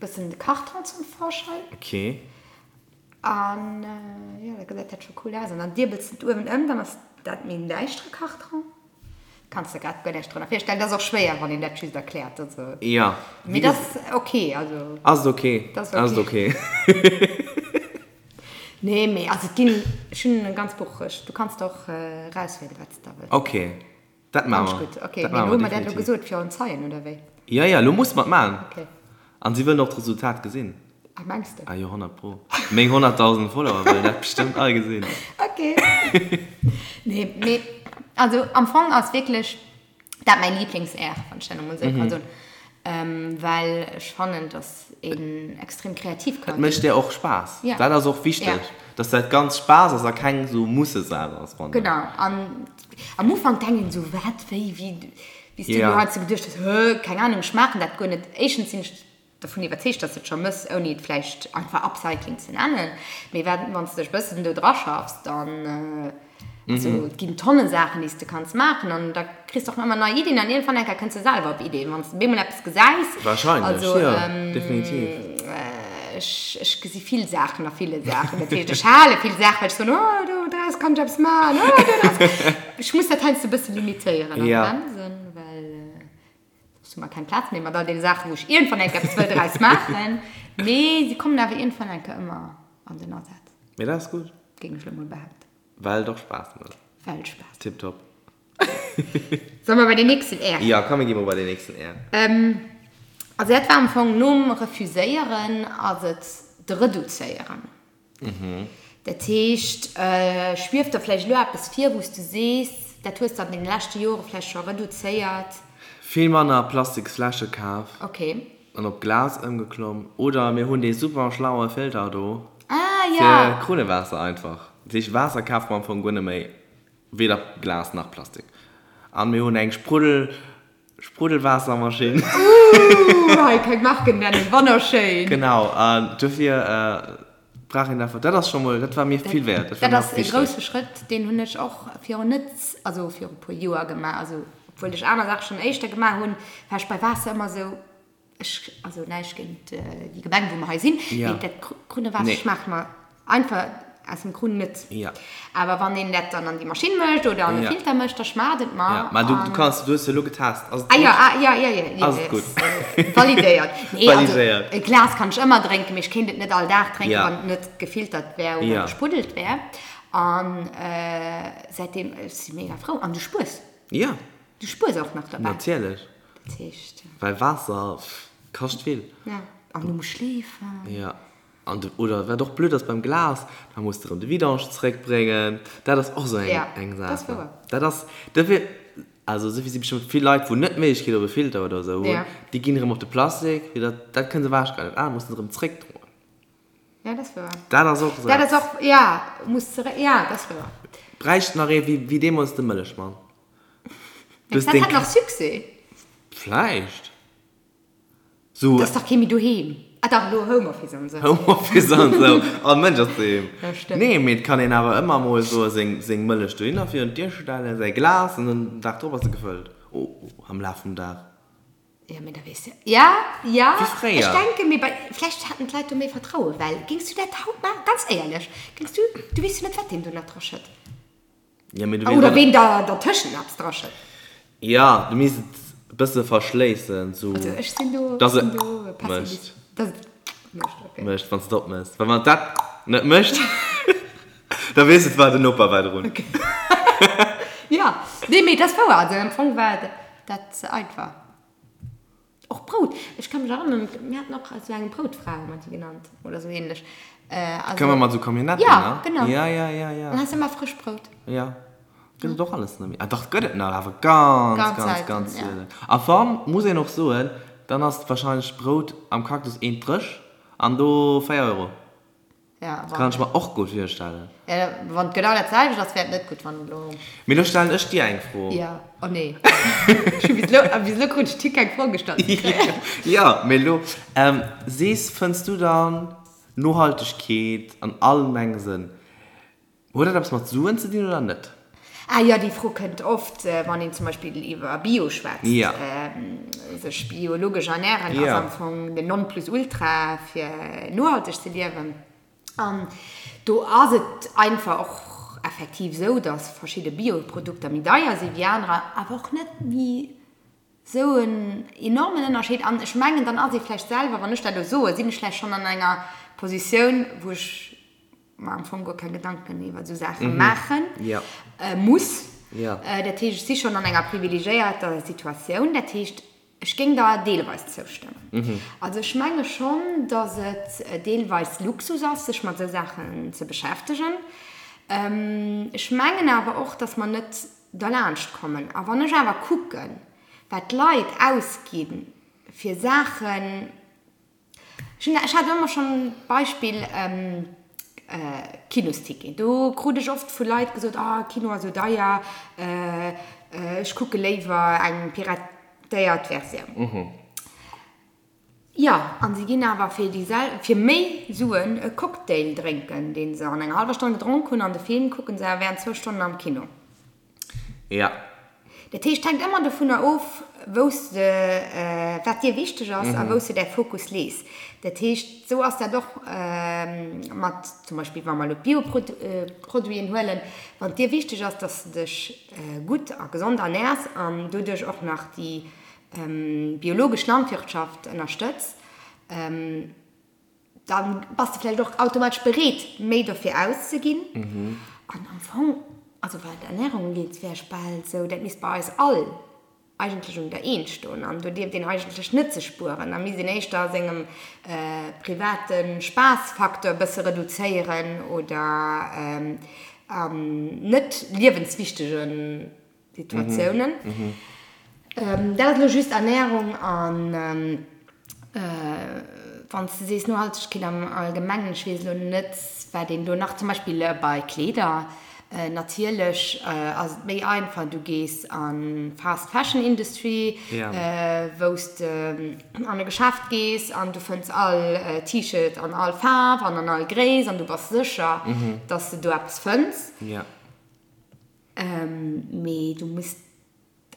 bëssen de Karton zum Vorschein. Ok. An jo, da gesäit dat scho cool aus. An dann diebels de et uewen ëm, dann ass dat méi en däischtere Karton. Kanns der grad guer näischt drënner virstellen. Dat ass och schwéier, wann een dat just erkläert. Also, Ja. mee dat ass ok. Also, Ass et ok. Dat ass Ass et ok. Nee, mee also et ginn, ech hunn e ganz Buch, ech, du kanns der och erauswielen, wat s de da wëlls. Ok, dat maache Fand ech mer. gutt. Ok, Dat mee maache elo hu mer mer dat elo definitiv. gesot fir en Zeien, oder wéi? Ja, ja, elo musse mer et maachen. Ok. An si wëllen och d'Resultat gesinn. Ah, mengs de? Ah jo, 100 pro. Meng 100.000 Follower wëllen dat bestëmmt all gesinn. Ok. Nee, mee also am Fong ass wierklech dat mäin Lieblings-Air, wann ech dat emol esou ka soen. Well ech fannen, dass een extrem kreativ ka Et mécht ginn. dir och Spaass. Ja. Dat ass och wichteg, Ja. dass dat Ganzt Spaass ass a keng esou Mussesaach ass, fannen ech. Genau. An am Ufank denkt een esou, wat, wéi, wéi, wéi s du Ja. elo heiansdo geduecht hues, hë, keng Ahnung, ech maachen dat guer net. Éischtens sinn ech dervun iwwerzeegt, dass de et scho mëss, ouni et vläicht einfach Upcycling ze nennen. Mee wat, wann s de dech e bëssen do draschaffs, dann, also et ginn tonne Saachen, déi s de kanns maachen an da kriss de och ëmmer nei Iddien an iergendwann eng Kéier kënns de selwer op Iddien, wann s de bemol eppes gesäis. Wahrscheinlech, Also, jo, definitiv. ech, ech gesi vill Saachen a ville Saachen. Dat heescht, ech hale vill Saachen, well ech soen, oh, do draus kann ech eppes maachen, oh, do draus. Ech muss dat heiansdo e bësse limitéieren a bremsen, well. Soss hu mer keng Plaz méi mat all deene Saachen, wou ech iergendwann eng Kéier eppes wëll draus maachen. Mee si kommen awer iergendwann eng Kéier ëmmer an den Asaz. Mee dat ass gutt. Géing ech elo mol behaapten. Well et och Spaass mécht. Well et Spaass mécht. Tiptop. Solle mer bei den nächsten R? Jo, komm mir gi mol bei den nächsten R. Also dat war am Fong nom Refuséieren ass et de Reduzéieren. Dat heescht, schwieft der vläicht elo eppes vir, wou s du sees, dat hues de an deene leschte Jore vläicht scho reduzéiert? Vill manner plastiks Fläsche kaf Okay. an op Glas ëmgeklomm. Oder mir hunn dee super schlaue Filter do Ah, fir ja. Krunnewaasser einfach. Dat heescht, Waasser kafe mer am Fong guer net méi, weder Glas nach Plastik. An mir hunn eng Spruddel. Spruddelwaassermaschinn. Ooh, hei keng Marken nennen, wonnerschéin. Genau, an dofir brauch een einfach, dat ass scho mol, dat war mir vill wäert. Dat ass e grousse Schrëtt, deen hunn ech och virun net, also viru puer Joer gemaach. Also obwuel ech aner Saache schonn éischter gemaach hunn, war ech bei Waasser ëmmer esou. Ech, also näischt géint déi Gemeng, wou mer hei sinn, mee dat Krunnewaasser schmaacht mer einfach aus dem Krunn net. Awer wann een dat dann an déi Maschinn mécht oder an e Filter mécht, da schmaacht et mer. Mä du kanns, du hues jo elo getest. Ass et gutt? Ah jo, ah jo, jo, jo. Ass et gutt? Validéiert. Nee, also e Glas kann ech ëmmer drénken, mee ech kéint et net all Dag drénken, wann et net gefiltert wär oder gespruddelt wär. An säitdeem, ech si mega frou. An du spuers. Du spuers och nach dobäi. Natierlech. Dat heescht. Well Waasser kascht vill. Ja, an du muss schleefen. Ja, an du, oder wat och blöd ass beim Glas, da muss de rëm de Vidange zeréckbréngen. Dat ass och esou eng, eng Saach. Ja, dat ass wouer. Dat ass, dofir, also esou si bestëmmt vill Leit, wou net d'Méiglechkeet op e Filter oder esou hunn, déi ginn erëm op de Plastik, fir dat, dat kënne se ewechgeheien, dat anert mussen se erëm zeréckdroen. Ja, dat ass wouer. Dat ass och esou Dat ass och, ja, muss zeréck, ja, dat ass wouer. Bräicht nach ee wéi, wéi deemools de Mëllechmann. Mengst dat hat nach Succès? Vläicht. So. T'ass dach kee méi doheem. Ah dach, elo Homeoffice an esou. Homeoffice an esou. All Mënsch ass doheem. Ja, stëmmt. Nee, mee et kann een awer ëmmer mol esou seng, seng Mëllech dohinner virun d'Dier stellen, säi Glas, an dann den Dag drop ass se gefëllt. Oh, am Laf vum Dag. Ja, mee da weess de. Ja, ja. Wéi fréier. Ech denken, mee bei, vläicht haten d'Leit do méi Vertrauen, well géings du dat haut maachen? Ganz éierlech, géings du, du weess jo net, wat deen do nach dra schëtt. Ja, mee du Oder ween da dertëschent eppes draschëtt. Ja, du misst et e bësse verschléissen, sou. Also ech sinn do, dass et sinn do mécht. Dass et mécht, okay. Mécht, wann s de et opméchs. Well wann et dat net mécht, da weess et war den Noper war drun. Okay. Ja, nee, mee et ass wouer. Also am Fong war dat einfach. Och Brout, ech ka mech erënneren, mir haten och esou eng Broutfra, hu mer déi genannt, oder esou ähnlech. Also, Kënne mer mat esou Camionnetten, ne? Ja, genau. Ja, ja, ja, ja. Dann has de ëmmer frëscht Brout. Ja. Gëtt et och alles net méi. Ah dach, gëtt et nach, awer ganz, Ganz ganz, selten, ganz ja. sielen. A wann, muss een och soen, dann ass wahrscheinlech d'Brout am Cactus eent dréch an do 4 Euro. Ja, wann. Kann ech mer och gutt virstellen. Ja, wann et genau dat selwecht ass, wär et net gutt, wann et elo. Mee lo stellen ech dir eng Fro. Ja, oh nee. Ech hu bis elo, bis elo krut ech keng Fro gestallt. Jo, mee elo, sees, fënns du dann Nohaltegkeet an allgemenge Sënn, huet dat eppes mat Suen ze dinn oder net? Ah jo, déi Fro kënnt oft, wann een zum Beispill iwwer Bio schwätzt. Sech biologesch ernären ass am Fong den Nonplusultra fir nohalteg ze liewen. An do ass et einfach och effektiv esou, datt verschidde Bioprodukter méi deier si wéi anerer, awer och net méi Sou en enormen Ënnerscheed. An ech mengen, dann ass ee vläicht selwer, wann ech dat elo soen, sinn ech vläicht schonn an enger Positioun, wou ech mer am Fong guer keng Gedanken iwwer esou Saache maache muss. Dat heescht, ech si schonn an enger privilegiéierter Situatioun. Dat heescht, ech géing der deelweis zoustëmmen. Also ech menge schonn, datt et deelweis Luxus ass, sech mat esou Saachen ze beschäftegen. Ech mengen awer och, datt mer net derlaanscht kommen. A wann ech awer kucken, wat d'Leit ausgi fir Saachen, ech hunn, ech hat ëmmer schonn d'Beispill Kinosticket, do krut ech oft vu Leit gesot, oh Kino ass esou deier, ech kucke léiwer eng piratéiert Versioun. Jo, an si ginn awer fir déi sel, fir méi Suen e Cocktail drénken, deen se an enger hallwer Stonn gedronk hunn, an de Film kucken se awer während zwou Stonnen am Kino. Ja. Dat heescht, hänkt ëmmer dovunner of, wou s de, wat dir wichteg ass a wou s de däi Fokus lees. Dat heescht, esou ass dat och mat zum Beispill, wa mer elo d'Bioproduiten huelen, wann et dir wichteg ass, dass de dech gutt a gesond ernärs an doduerch och nach déi biologesch Landwirtschaft ënnerstëtz, da bass de vläicht och automatesch bereet, méi dofir auszeginn. An am Fong, also wat d'Ernärung ugeet, wär ech bal esou, dat misst bei eis all eigentlech un der Eent stoen. An do dierft een eigentlech net ze spueren. Da misst een éischter a sengem private Spaassfacteur e bësse reduzéieren oder an net liewenswichtege Situatiounen. Dat ass elo just Ernährung an wann s de sees Nohaltegkeet am Allgemengen, ech weess elo net, wat een do nach, zum Beispill bei Kleeder, natierlech ass et méi einfach, du gees an d'Fast Fashion Industry, wou s de an e Geschäft gees an du fënns all T-Shirt an all Faarf an an all Gréisst an du bass sécher, dass de do eppes fënns. Mee du muss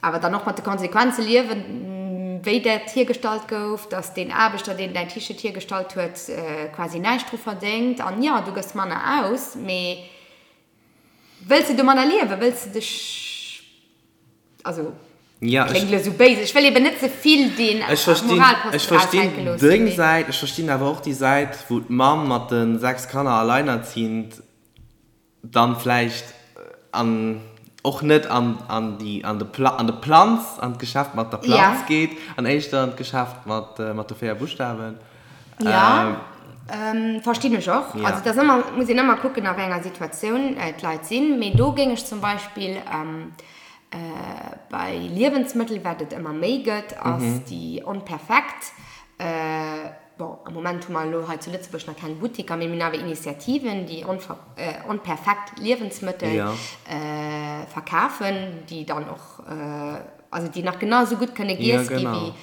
awer dann och mat de Konsequenze liewen. Wéi dat hiergestallt gouf, dass deen Aarbechter, deen däin T-Shirt hiergestallt huet, quasi näischt dru verdéngt. An jo, du gëss manner aus, mee wëlls de domadder liewen? Wëlls de dech, also kléngt elo esou béis, ech wëll eben net ze vill dee Moralposten Ech verstinn deng Säit, ech verstinn awer och déi Säit, wou d'Mamm mat de 6 Kanner alleinerziehend dann vläicht an och net an an déi an de Pla an de Planz an d'Geschäft mat der Planz ja. geet an éischter an d'Geschäft mat mat de 4 Buschtawen. Ja, ähm, verstinn ech och. Ja. Also dat ass ëmmer, muss een ëmmer kucken a wéi enger Situatioun d'Leit sinn. Mee do géing ech zum Beispill ähm, äh, bei Liewensmëttel, wat et ëmmer méi gëtt, ass mhm. déi onperfekt äh, Bon, am Moment hu mer elo hei zu Lëtzebuerg nach keng Buttiker, mee mir hunn awer Initiativen, déi onperfekt Liewensmëttel verkafen, déi dann och, also déi nach genau esou gutt kënne giess gi wéi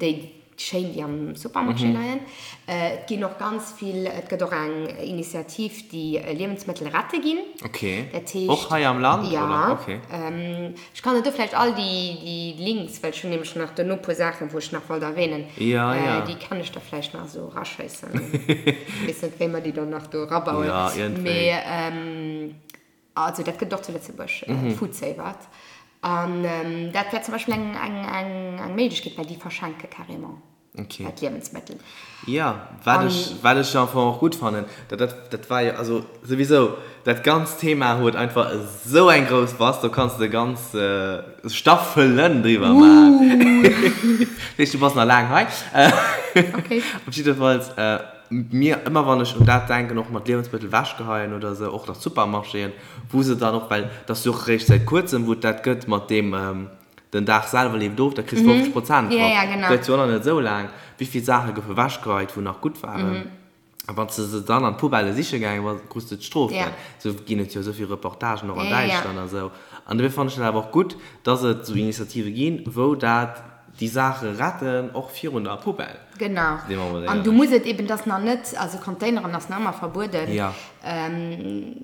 déi schéin, déi am Supermarché leien. Et ginn och ganz vill, et gëtt och eng Initiativ, déi Liewensmëttel rette ginn. Okay. Dat heescht. Och hei am Land, oder? Ja. Okay. Ech kann der do vläicht all déi Links, well ech hunn nämlech nach duerno e puer Saachen, wou ech nach wollt erwähnen, Ja, ja. déi kann ech der vläicht nach esou eraschéissen. Weess net, wéi mer déi dann nach do erabauen. Ja, iergendwéi. Mee also dat gëtt et och zu Lëtzebuerg, Foodsavert. An dat wär zum Beispill eng, eng, eng, eng Méiglechkeet, well déi verschenke carrément. Okay. Dat Liewensmëttel. Ja, wat ech, wat ech am Fong och gutt fannen, dat, dat, dat war jo, also souwisou, dat ganzt Thema huet einfach esou eng grouss Bass, do kanns de ganz Staffelen driwwer maachen. Dat heescht, du bass nach laang hei. Okay. Op jiddefalls, mir, ëmmer wann ech un dat denken, och mat Liewensmëttel wechgeheien oder esou, och nach Supermarchéen, wou se dann och, well dat ass jo och eréischt säit kuerzem, wou et dat gëtt mat deem, Den Dag selwer leeft of, da kriss de 50 Prozent drop. Ja, ja, genau. Gëtt jo och nach net esou laang. Wéi vill Saache goufe wechgeheit, wou nach gutt waren? A wann s de se dann an d'Poubelle siche gaange bass, krus de d'Strof. Ja. Esou ginn et jo esou vill Reportagen och an Ja, ja, ja. Däitschland a sou. An dofir fannen ech dat awer och gutt, dass et esou Initiative ginn, wou dat déi Saache retten, och virun der Poubelle. Genau. Si mer mol An du éierlech. muss et eben, dass nach net, also Containeren ass nach ëmmer verbueden. Ja.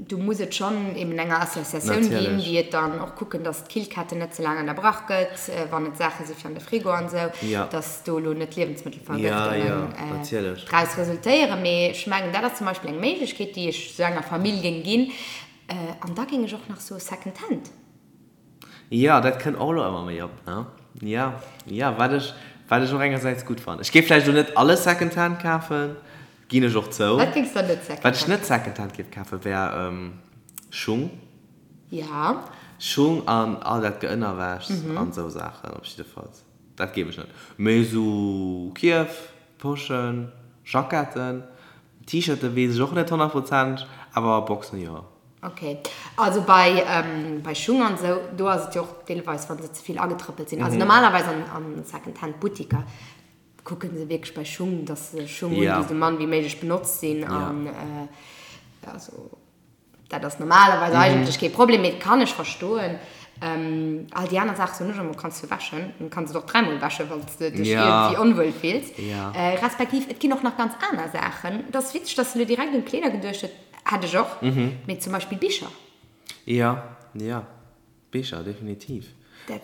Du muss et schonn eben enger Associatioun ginn, Natierlech. déi et dann och kucken, dass d'Killketten net ze laang ënnerbrach gëtt, wann et Saache si fir an de Frigo an esou, Ja. dass do elo net Ja, Liewensmëttelvergëftungen ja, natierlech. draus resultéieren. Mee ech mengen, dat ass zum Beispill eng Méiglechkeet, déi ech esou enger Famill géing ginn. An da géing ech och nach soe Second Hand. Jo, dat kënnt och elo ëmmer méi op, ne? Jo, jo, wat ech, wat ech och engersäits gutt fannen. Ech géif vläicht elo net alles Secondhand kafen, ginn ech och zou. Wat géings de net Secondhand Wat ech net Secondhand géif kafen, wär Schung. Ja. Schung an all dat Geënnerwäschs an esou Saachen op jiddefalls. Dat géif ech net. Mee esou Kierf, Poschen, Jacketten, T-Shirten weess ech och net 100%, awer Boxen jo. Ok, also bei bei Schung an esou, do ass et jo och deelweis wann se ze vill agetrëppelt sinn. Also normalerweis an an Second-Hand Buttiker kucken se wierklech bei Schung, dass se Schung hunn, déi esou mann wéi méiglech benotzt sinn an also dat ass normalerweis eigentlech kee Problem, mee kann ech verstoen. All déi aner Saache soen ech ëmmer, kanns du wäschen, dann kanns du et och dräimol wäschen, wann s de dech iergendwéi onwuel fills. Respektiv et ginn och nach ganz aner Saachen. Et ass witzeg, dass de elo direkt un d'Kleeder geduecht hues. Hätt ech och, mee zum Beispill Bicher. Jo, jo, Bicher, definitiv.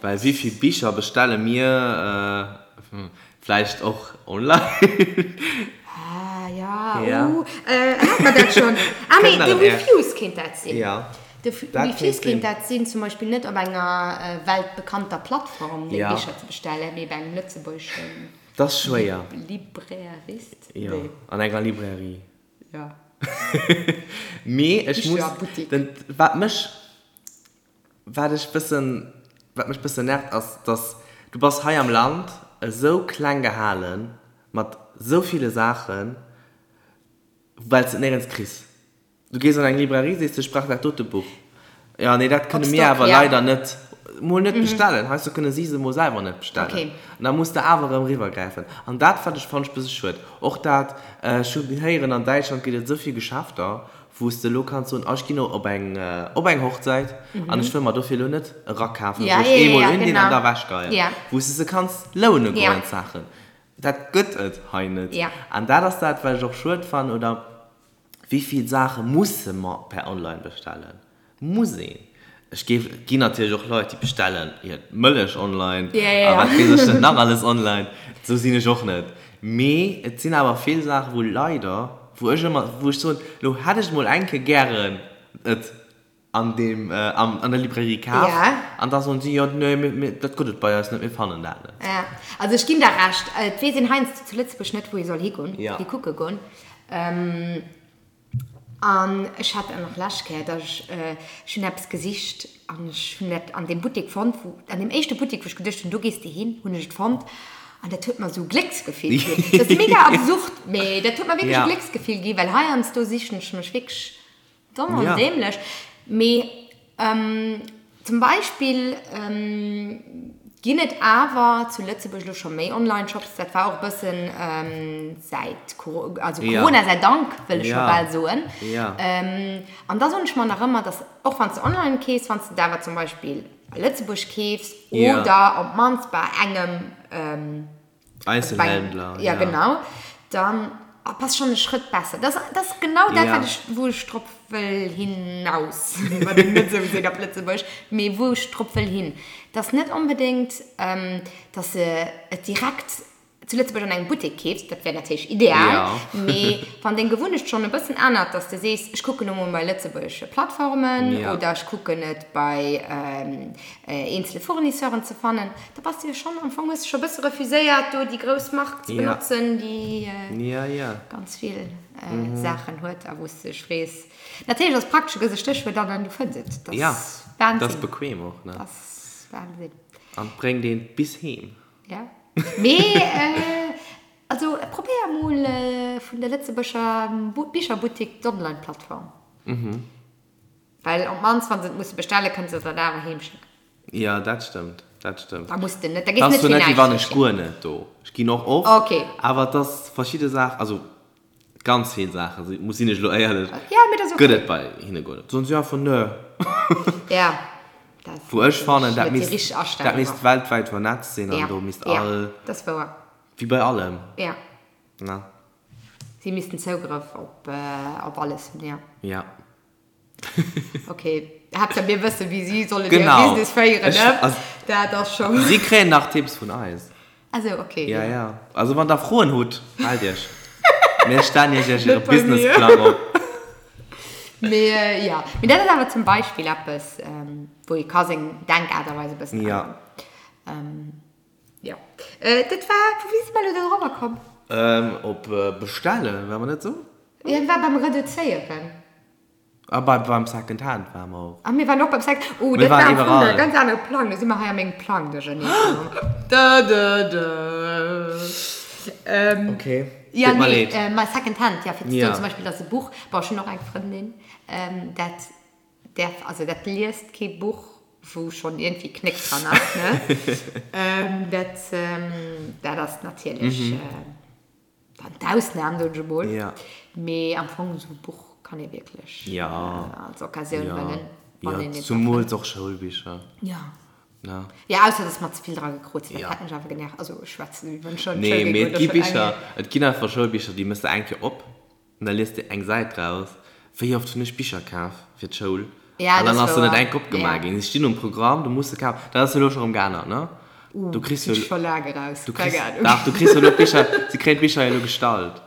Well wéi vill Bicher bestelle mir vläicht och online? Ah, ja, uh, hat mer dat schonn? Ah, mee de Refuse kéint dat sinn. Jo, De Refuse kéint dat sinn, zum Beispill net op enger weltbekannter Plattform deng Bicher ze bestellen, mee bei engem lëtzebuergeschen Dat ass schwéier. Librairist? Jo, an enger Librairie. Ja. Mee ech muss, den, wat mech, wat ech bëssen, wat mech bëssen nervt ass, dass du bass hei am Land esou kleng gehalen mat esou ville Saachen, well s de et néierens kriss. Du gees an eng Librairie, sees de, ech brauch dat dote Buch. Jo, nee, dat kënne mir awer leider net, mol net bestellen. Heiansdo kënne si se mol selwer net bestellen. An da muss de awer erëm eriwwergräifen. An dat wat ech, fannen ech bësse schued. Och dat, ech hu héieren, an Däitschland gëtt et esou vill Geschäfter, wou s de elo kanns soen, oh ech ginn elo op eng, op eng Hochzäit an ech wëll mer dofir elo net e Rack kafen, wou ech eemol undinn an da ewechgeien. Wou s de se kanns loune goen, d'Saachen. Dat gëtt et hei net. An dat ass dat, wat ech och schued fannen, oder Wéi vill Saache musse mer per online bestellen? Muss een? Ech géif, et ginn natierlech och Leit, déi bestellen hir Mëllech online a wat weess ech net nach alles online. Esou sinn ech och net. Mee et sinn awer vill Saachen, wou leider, wou ech ëmmer, wou ech soen, elo hätt ech mol eng Kéier gären et an deem, an der Librairie kaf an da soen si, jo, nee, mir, dat gëtt et bei eis net, mir fannen dat net. Jo, also ech ginn der Recht. Et weess een heiansdo zu Lëtzebuerg net, wou ee soll higoen, hikucke goen. An ech hat dat nach lescht Kéier, dass ech, ech hunn eppes gesicht an ech hunn dat an deem Buttek fonnt, wou, an deem éischte Buttek, wou ech geduecht hunn, do gees de hin, hunn ech et fonnt an dat huet mer esou e Glécksgefill ginn. Dat ass mega absurd, mee dat huet mer wierklech e Glécksgefill ginn, well heiansdo sichen ech mech wierklech domm an däämlech. Mee Zum Beispill ginn et awer zu Lëtzebuerg elo scho méi Online-Shops. Dat war och e bëssen säit, also Corona sei Dank, wëll ech scho bal soen. An da soen ech mer nach ëmmer, dass och wann s de online keefs, wann s de et awer zum Beispill a Lëtzebuerg keefs oder op d'mannst bei engem, Einzelhändler, ja. Ja, genau. Dann bass schon e Schrëtt besser. Das, das ass genau dat, wat ech, wou ech drop wëll hinaus. Wat een net esou seet op Lëtzebuerg, mee wou ech drop wëll hin. Dass net onbedéngt, dass de et direkt zu Lëtzebuerg an engem Buttek keefs, dat wär natierlech ideal, mee wann deng Gewunnecht schonn e bëssen ännert, dass de sees, ech kucken elo mol bei lëtzebuergesche Plattformen oder ech kucken et bei eenzele Fournisseuren ze fannen, Da bass de jo schonn, am Fong hues de scho bësse refuséiert do déi grouss Mark ze benotzen, déi ganz vill Saachen huet a wou s de dech frees. Natierlech ass et praktesch, du gëss e Stéchwuert an an du fënns et. Dat ass Wahnsinn. Dat ass bequem och, ne? Dat ass Wahnsinn. An et bréngt een bis heem. Ja. Mee also probéier mol vun der Lëtzebuerger Bicherbuttik d'Online-Plattform. Well op d'mannst wa se et musse bestellen, kënne se der dat awer heem schécken. Jo, dat stëmmt, dat stëmmt. Da muss de net, da gees net fir näischt. Wann ech guer net do. Ech ginn och oft. Ok. Awer et ass verschidde Saachen, also ganz vill Saachen, si muss sinn ech elo éierlech, Ja, mee dat ass ok. gëtt et bei hinne guer net. Soen si einfach nö. Ja, dat Wou ech fannen, dat misst, dat misst weltwäit vernetzt sinn an do misst all. Ja, dat ass wouer. Wéi bei allem. Ja. Ne? Si missten Zougrëff op, op alles hunn, ja. Ja. Ok, Haaptsaach mir wëssen, wéi si sollen hir Business féieren, ne? Dat ass scho. Si kréien nach Tipps vun eis. Ah sou, ok. Ja, ja. Also wann der Froen hutt, mellt iech. Mir stellen iech iech iere Businessplang op. Mee jo, mee dat ass awer zum Beispill eppes, wou ee ka seng Denkaart a Weis e bëssen änneren. Jo. Dat war, wéi si mer elo do dorobber komm? Op bestellen, war mer net esou? Jo, dat war beim Reduzéieren. A bei, beim Second Hand ware mer och. A mir waren och beim Second, oh, dat war am Fong e ganz anere Plang. Do si mer hei a mengem Plang duerchernee komm. Da, da, da. Ok, deet mer leed. Jo, nee, ma Second Hand, ja, fir ze soen, zum Beispill, dass e Buch, bon, ech hunn och eng Frëndin, dat däerf, also dat liest kee Buch, wou schonn iergendwéi Knéck dran ass, ne? Dat, dat ass natierlech. Dann d'Ausnahm, soen ech emol. Ja. Mee am Fong esou e Buch kann ee wierklech ja. als Occasioun ja. huelen. Wann ja, zumools och Schoulbicher. Ja. Na. Ja, ausser dass mer ze vill dra gekrot sinn, dat ja. hätt mech awer genervt. Also ech schwätzen, wéi wann ech schon Nee, d'Schoul mee et géing gi goen, Bicher, et ginn einfach Schoulbicher, déi mëss de eng Kéier op An da liest de eng Säit draus. Wéi oft hunn ech Bicher kaf fir d'Schoul Ja, an dann dat ass ass se net wouer. enk opgemaach Ja. ginn. Se stinn um Programm, du muss se kafen. Dat ass elo scho rëm geännert, ne? Uh, Du kriss sinn jo, ech scho laang eraus. du Keng kriss, Ahnung. dach, du kriss jo elo d'Bicher, se kréien d'Bicher jo elo gestallt.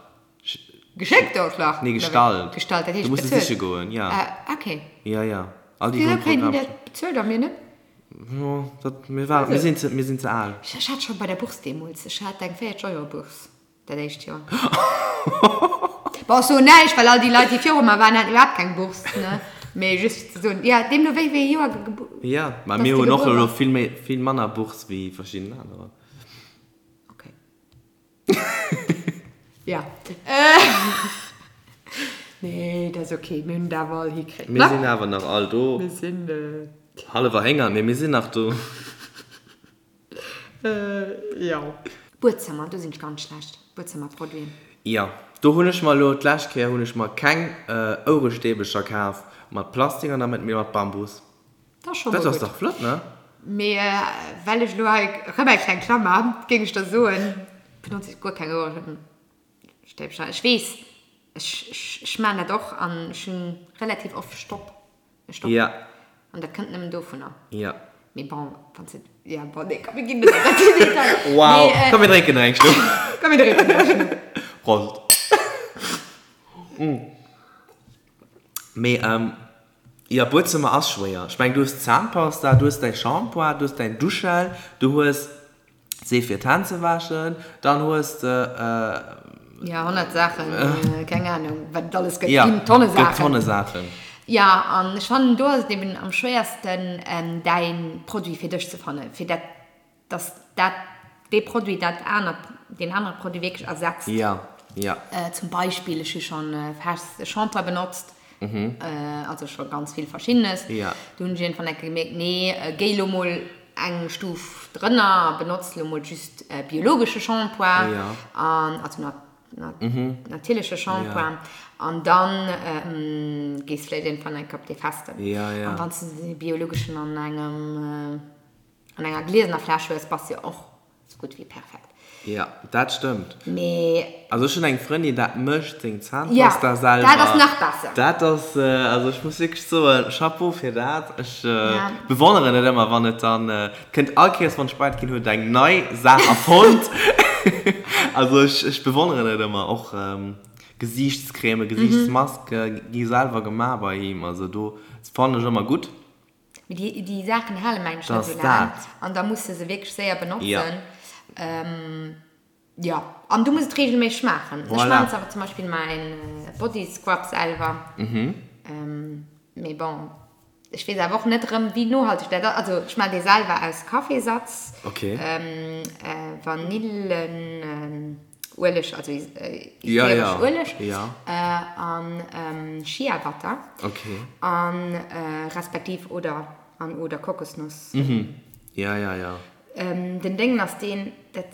Geschéckt och nach? Nee, Oder wéi? gestallt. Gestallt, dat Du heescht muss se bezuelt? siche goen, ja. Ah, okay. Ja, ja. All déi, wou Wisou um kréien déi Programm dat stinn. bezuelt a mir net? Jo, dat, mir war, mir sinn ze, mir sinn ze al. Ech hat scho bei der Bourse deemools, ech hat eng 40 Euro Bourse. Dat éischt Joer. Bon, ech soen näischt, well all déi Leit, déi viru mer waren, haten iwwerhaapt keng Bourse, ne? Mee just fir ze soen, jo, deemno wéi wéi ee Joer ge. Jo, mä dass mir de hunn och gebuer elo bass. vill méi, vill manner Bourse wéi verschidden anerer. Okay. Ja. Nee, dat ass okay, mir hunn et awer all hikritt, Mir ne? sinn awer nach all do. Mir sinn. Hallef erhéngert, mee mir sinn nach do. Jo. Buedzëmmer, do sinn ech ganz schlecht. Buedzëmmerproduiten. Jo, do hunn ech mer elo, d'lescht Kéier hunn ech mer keng Ouerestäbecher kaf mat Plastik an der Mëtt, mee mat Bambus. Dat ass scho mol Dat ass gutt. dach flott, ne? Mee well ech elo hei erëm eng kleng Klammer hunn, géing ech der soen, benotze ech guer keng Ouerestäbcher. Ech weess, ech, ech, ech maachen dat och an ech hunn relativ oft Stopp, e Stopp. Ja. An dat kënnt nëmmen dovunner. Ja. Mee bon, wann s de, ja bon, nee, komm mir ginn net an den Detail. Wow, mee, äh, komm mir drénken nach eng Schlupp. Komm mir drénken nach eng Schlupp. Prost. Mee, ähm, jo, Buedzëmmer ass schwéier. Ech mengen, du hues d'Zahnpasta, du hues däi Shampoing, du hues däin Duschgel, du hues Seef fir d'Hänn ze wäschen, dann hues de. Jo, 100 Saachen, keng Ahnung, wat et alles gëtt. Ginn Tonne Saachen. Gëtt Tonne Saachen. Jo, an ech fannen, do ass et eben am schwéiersten, däin Produit fir dech ze fannen, fir dat, dass dat, dee Produit dat anert, deen anere Produit wierklech ersetzt. Jo, jo. Zum Beispill, ech hu schonn fest Shampoing benotzt, also scho ganz vill Verschiddenes. Do hunn ech iergendwann eng Kéier gemierkt, nee, géi elo mol eng Stuf drënner a benotzt elo mol just biologesche Shampoing, an also natierleche Shampoing, an dann gees vläicht iergendwann eng Kéier op dee festen. An wann s de dee biologeschen an engem, an enger gliesener Fläsch hues, bass de jo och Sou gutt wéi perfekt. Jo, dat stëmmt. Mee. Also ech hunn eng Frëndin, dat mécht seng Zahnpasta selwer. Jo, dat ass nach besser. Dat ass, also ech muss wierklech soen, Chapeau fir dat. Ech bewonneren et ëmmer, wann et dann kënnt. All Kéiers wann ech bei et ginn, huet et eng nei Saach erfonnt. Also ech, ech bewonneren et ëmmer. Och Gesiichtscreme, Gesiichtsmaske gi selwer gemaach bei him. Also do fannen ech ëmmer gutt. Mee déi, déi Saachen hale mengen ech net esou laang. An da muss de se wierklech séier benotzen. Jo. An du muss et reegelméisseg maachen. Ech maachen awer zum Beispill mäin Body Scrub selwer. Mee bon, ech weess awer och net erëm, wéi nohalteg dat ass. Also ech maachen dee selwer aus Kaffeesatz, Vanillen. Ueleg, also ätheresch Ueleg an Sheabutter an respektiv oder an oder Kokosnuss. Ja, ja, ja. Den Déngen ass deen, dat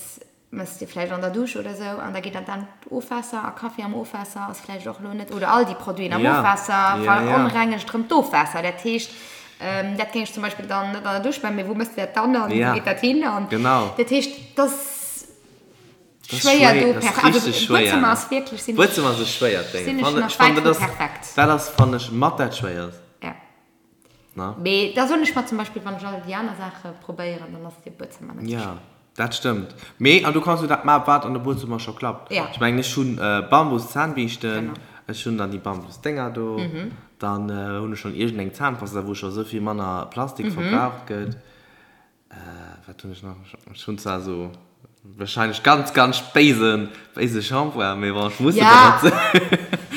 mëss de vläicht an der Dusch oder sou an da geet dat an d'Ofwaasser a Kaffi am Ofwaasser ass vläicht och elo net, oder all déi Produiten am Ofwaasser veronrengegt erëm d'Ofwaasser. Dat heescht, dat géing ech zum Beispill dann net an der Dusch maachen, mee wou mëss de dat dann an wou geet dat hin? An dat heescht, dass. Schwéier do perfekt. Also Buedzëmmer ass wierklech sinn Buedzëmmer ass e schwéiert Ding. Sinn ech nach wäit vu perfekt. Dat ass fannen ech mat dat schwéierst. Ja. Na? Mee da soen ech mer zum Beispill, wann ech all déi aner Saache probéieren, dann ass de Buedzëmmer net sou schwéier. Ja, dat stëmmt. Mee an du kanns jo dat maachen, wat an de Buedzëmmer scho klappt. Ja. Ech mengen ech hunn Bambus-Zahnbiischten, ech hunn dann déi Bambus-Dénger do, dann hunn ech schonn iergendeng Zahnpasta, wou scho sou vill manner Plastik verbraucht gëtt. Wat hunn ech nach? Ech hunn zwar esou wahrscheinlech ganz, ganz béisen, béise Shampoing, mee bon, ech muss e benotzen.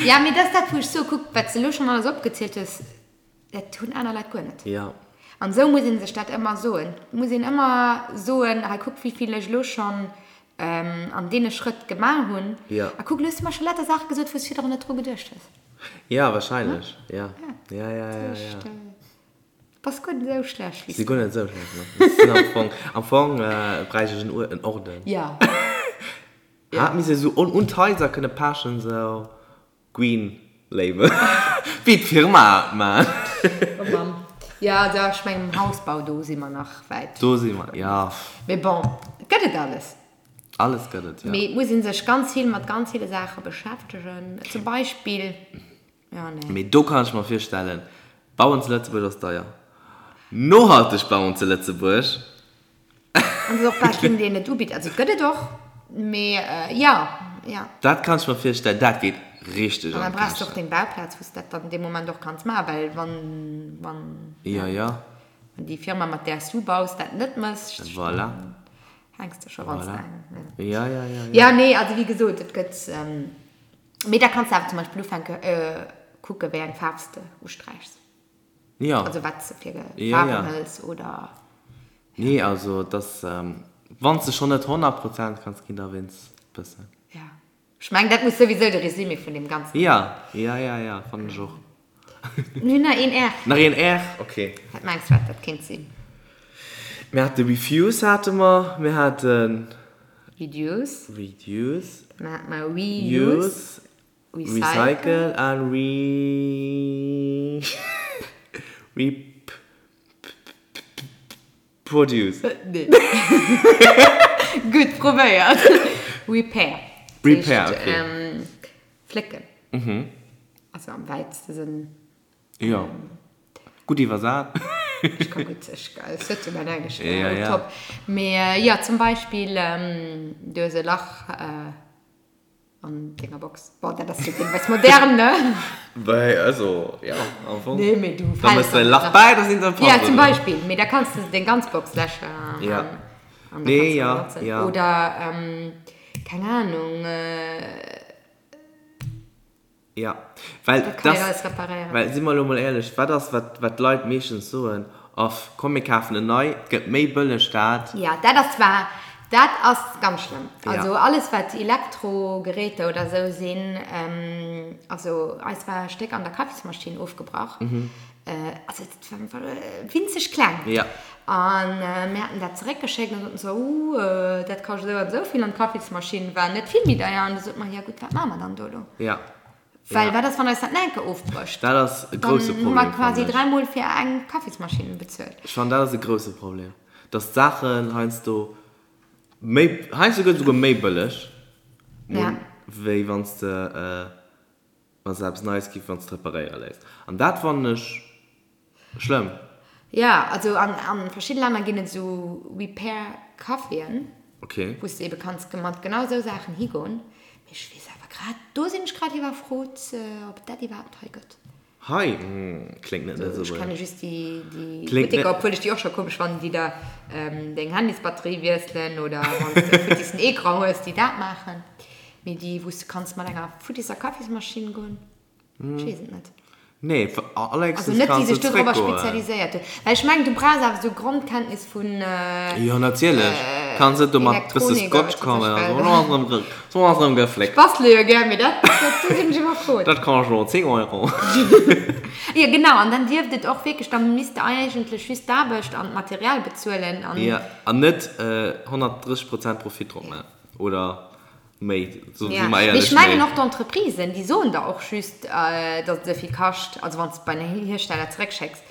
Ja, mee dat ass dat, wou ech soe, kuck, wat s de elo schonn alles opgezielt hues, dat hunn aner Leit guer net. Ja. An esou muss ee sech dat ëmmer soen. Et muss een ëmmer soen, hei kuck, wéi vill ech elo schonn an deene Schrëtt gemaach hunn. Ja. A kuck, elo hues de mer scho lauter Saache gesot, wou s de virdrun net dru geduecht hues. Ja, wahrscheinlech, ja. Ja, ja, ja, ja. Bass guer net esou schlecht wéi s du. Si guer net esou schlecht, ne. Sinn am Fong, am Fong bräicht ech en Uer, en Orden. Ja. Hat misst esou un un d'Haiser kënne pechen, esou Green Label, wéi d'Firma et man. Oh Mann. Ja, da, ech mengen um Hausbau, do si mer nach wäit. Do si mer, ja. Mee bon, et gëtt et alles. Alles gëtt et, ja. Mee et muss ee sech ganz vill mat ganz ville Saache beschäftegen. Zum Beispill. Ja, nee. Mee do kann ech mer virstellen, Bauen zu Lëtzebuerg ass deier. Nohalteg bauen zu Lëtzebuerg. An et ass och bal keen, deen et ubitt. Also et gëtt et och, mee jo, jo. Dat kann ech mer virstellen, dat geet richteg an d'Käschten. An da brauchs de och deng Bauplaz, wou s de dat dann dee Moment och kanns maachen, well wann, wann, Jo, jo. wann déi Firma, mat där s du baus, dat net mécht, Voilà. dann hänks de scho ganz Voilà. laang. Jo, jo, jo, jo. Jo, nee, also wéi gesot, et gëtt. Mee da kanns de awer zum Beispill ufänke kucke wéi eng Faarf s de usträichs. Jo. Also wat s de fir Faarwen hëls oder. Nee, also et ass, wann s de schonn net 100 Prozent kanns ginn, da wéinst bëssen. Jo. Ech mengen dat muss souwisou de Résumé vun deem ganzen. Jo, jo, jo, jo, fannen ech och. Mir hunn nach een R. Nach een R, ok. Wat mengs de wat dat kéint sinn? Mir hate Refuse hate mer, mir haten. Reduce. Reduce. Dann hate mer Reuse. Recycle an Re. Rep. Produce. Nee. Gutt probéiert. Repair. Repair, ok. Flécken. Also am wäitste Sënn. Jo. Gutt iwwersat. Ech ka gutt, ech, ech sëtze mäin Englesch ja, ja. top. Mee jo, zum Beispill, du hues e Lach an denger Box. Bon, dat ass jo deelweis modern, ne? Wei, also, ja, am Fong. Nee, mee du Da mëss de e Lach bäi, da sinn se Ja, zum Beispill. Mee da kanns de deng ganz Box läschen. Ja. An da Nee, kanns du ja, benotzen. ja. Oder, keng Ahnung, Ja, well Dat kann een das, alles reparéieren. well si mer elo mol éierlech, wat ass wat wat d'Leit meeschtens soen, Off, komm mir kafen en nei, et gëtt méi bëlleg dat. Ja, dat ass zwar, dat ass ganz schlëmm. Ja. Also alles wat Elektrogeräter oder esou sinn, also eis war e Stéck an der Kaffismaschinn ofgebrach, also dat war einfach winzeg kleng. Ja. An mir haten dat zeréckgeschéckt an soten se, uh, dat kascht esou an esou vill an d'Kaffismaschinn war net vill méi deier. An du sot mer, jo gutt, wat maache mer dann do elo? Ja. Well wat ass, wann eis dat nach eng Kéier ofbrécht? Dat ass e grousse Dann hu mer Problem, quasi fannen ech. dräimol fir eng Kaffismaschinn bezuelt. Ech fannen, dat ass e grousse Problem, dass d'Saachen heiansdo méi, heiansdo gëtt et esouguer méi bëlleg, Ja. wéi wann s de, wann s de eppes Neies keefs, wann s de et reparéiere léiss. An dat fannen ech Schlëmm. Jo, also an an verschidde Länner ginn et esou Repair Caféen, Okay. wou s de ebe kanns mat genau esou Saachen higoen. Mee ech weess awer grad, do sinn ech grad iwwerfrot, ob et dat iwwerhaapt hei gëtt. Hei? Kléngt net Ech Lëtzebuerg. kenne just déi déi Kléngt Butteker, net. obwuel ech déi och scho komesch fannen, déi der deng Handysbatterie wiesselen oder wann s de e futtissen Ecran hues, déi dat maachen. Mee déi wou s de kanns mat enger futtisser Kaffismaschinn goen. Ech weess et net. Nee, Also allerhéchstens net déi kanns du sech dorobber zréckgoen. spezialiséiert hunn. Well ech mengen, du brauchs awer esou Grondkenntnis vun Jo, natierlech. Kanns net do mat bësse Elektronik a Scotch wat weess ech kommen a wat. soen, oh, ass erëm ge, so ass erëm Ech gefléckt. bastele jo gär, mee dat, dat, do sinn ech iwwerfrot. Dat kascht elo 10 Euro. Jo, genau. An dann dierft et och wierklech, da misst de eigentlech just d'Aarbecht an d'Material bezuelen an. Jo, an net 130 Prozent Profit drop maachen, oder? Méi, so si mer Mee éierlech, ech mengen méi. och d'Entreprisen, déi soen der och just, datt et esou vill kascht, also wann s de et bei den Hiersteller zeréckschécks,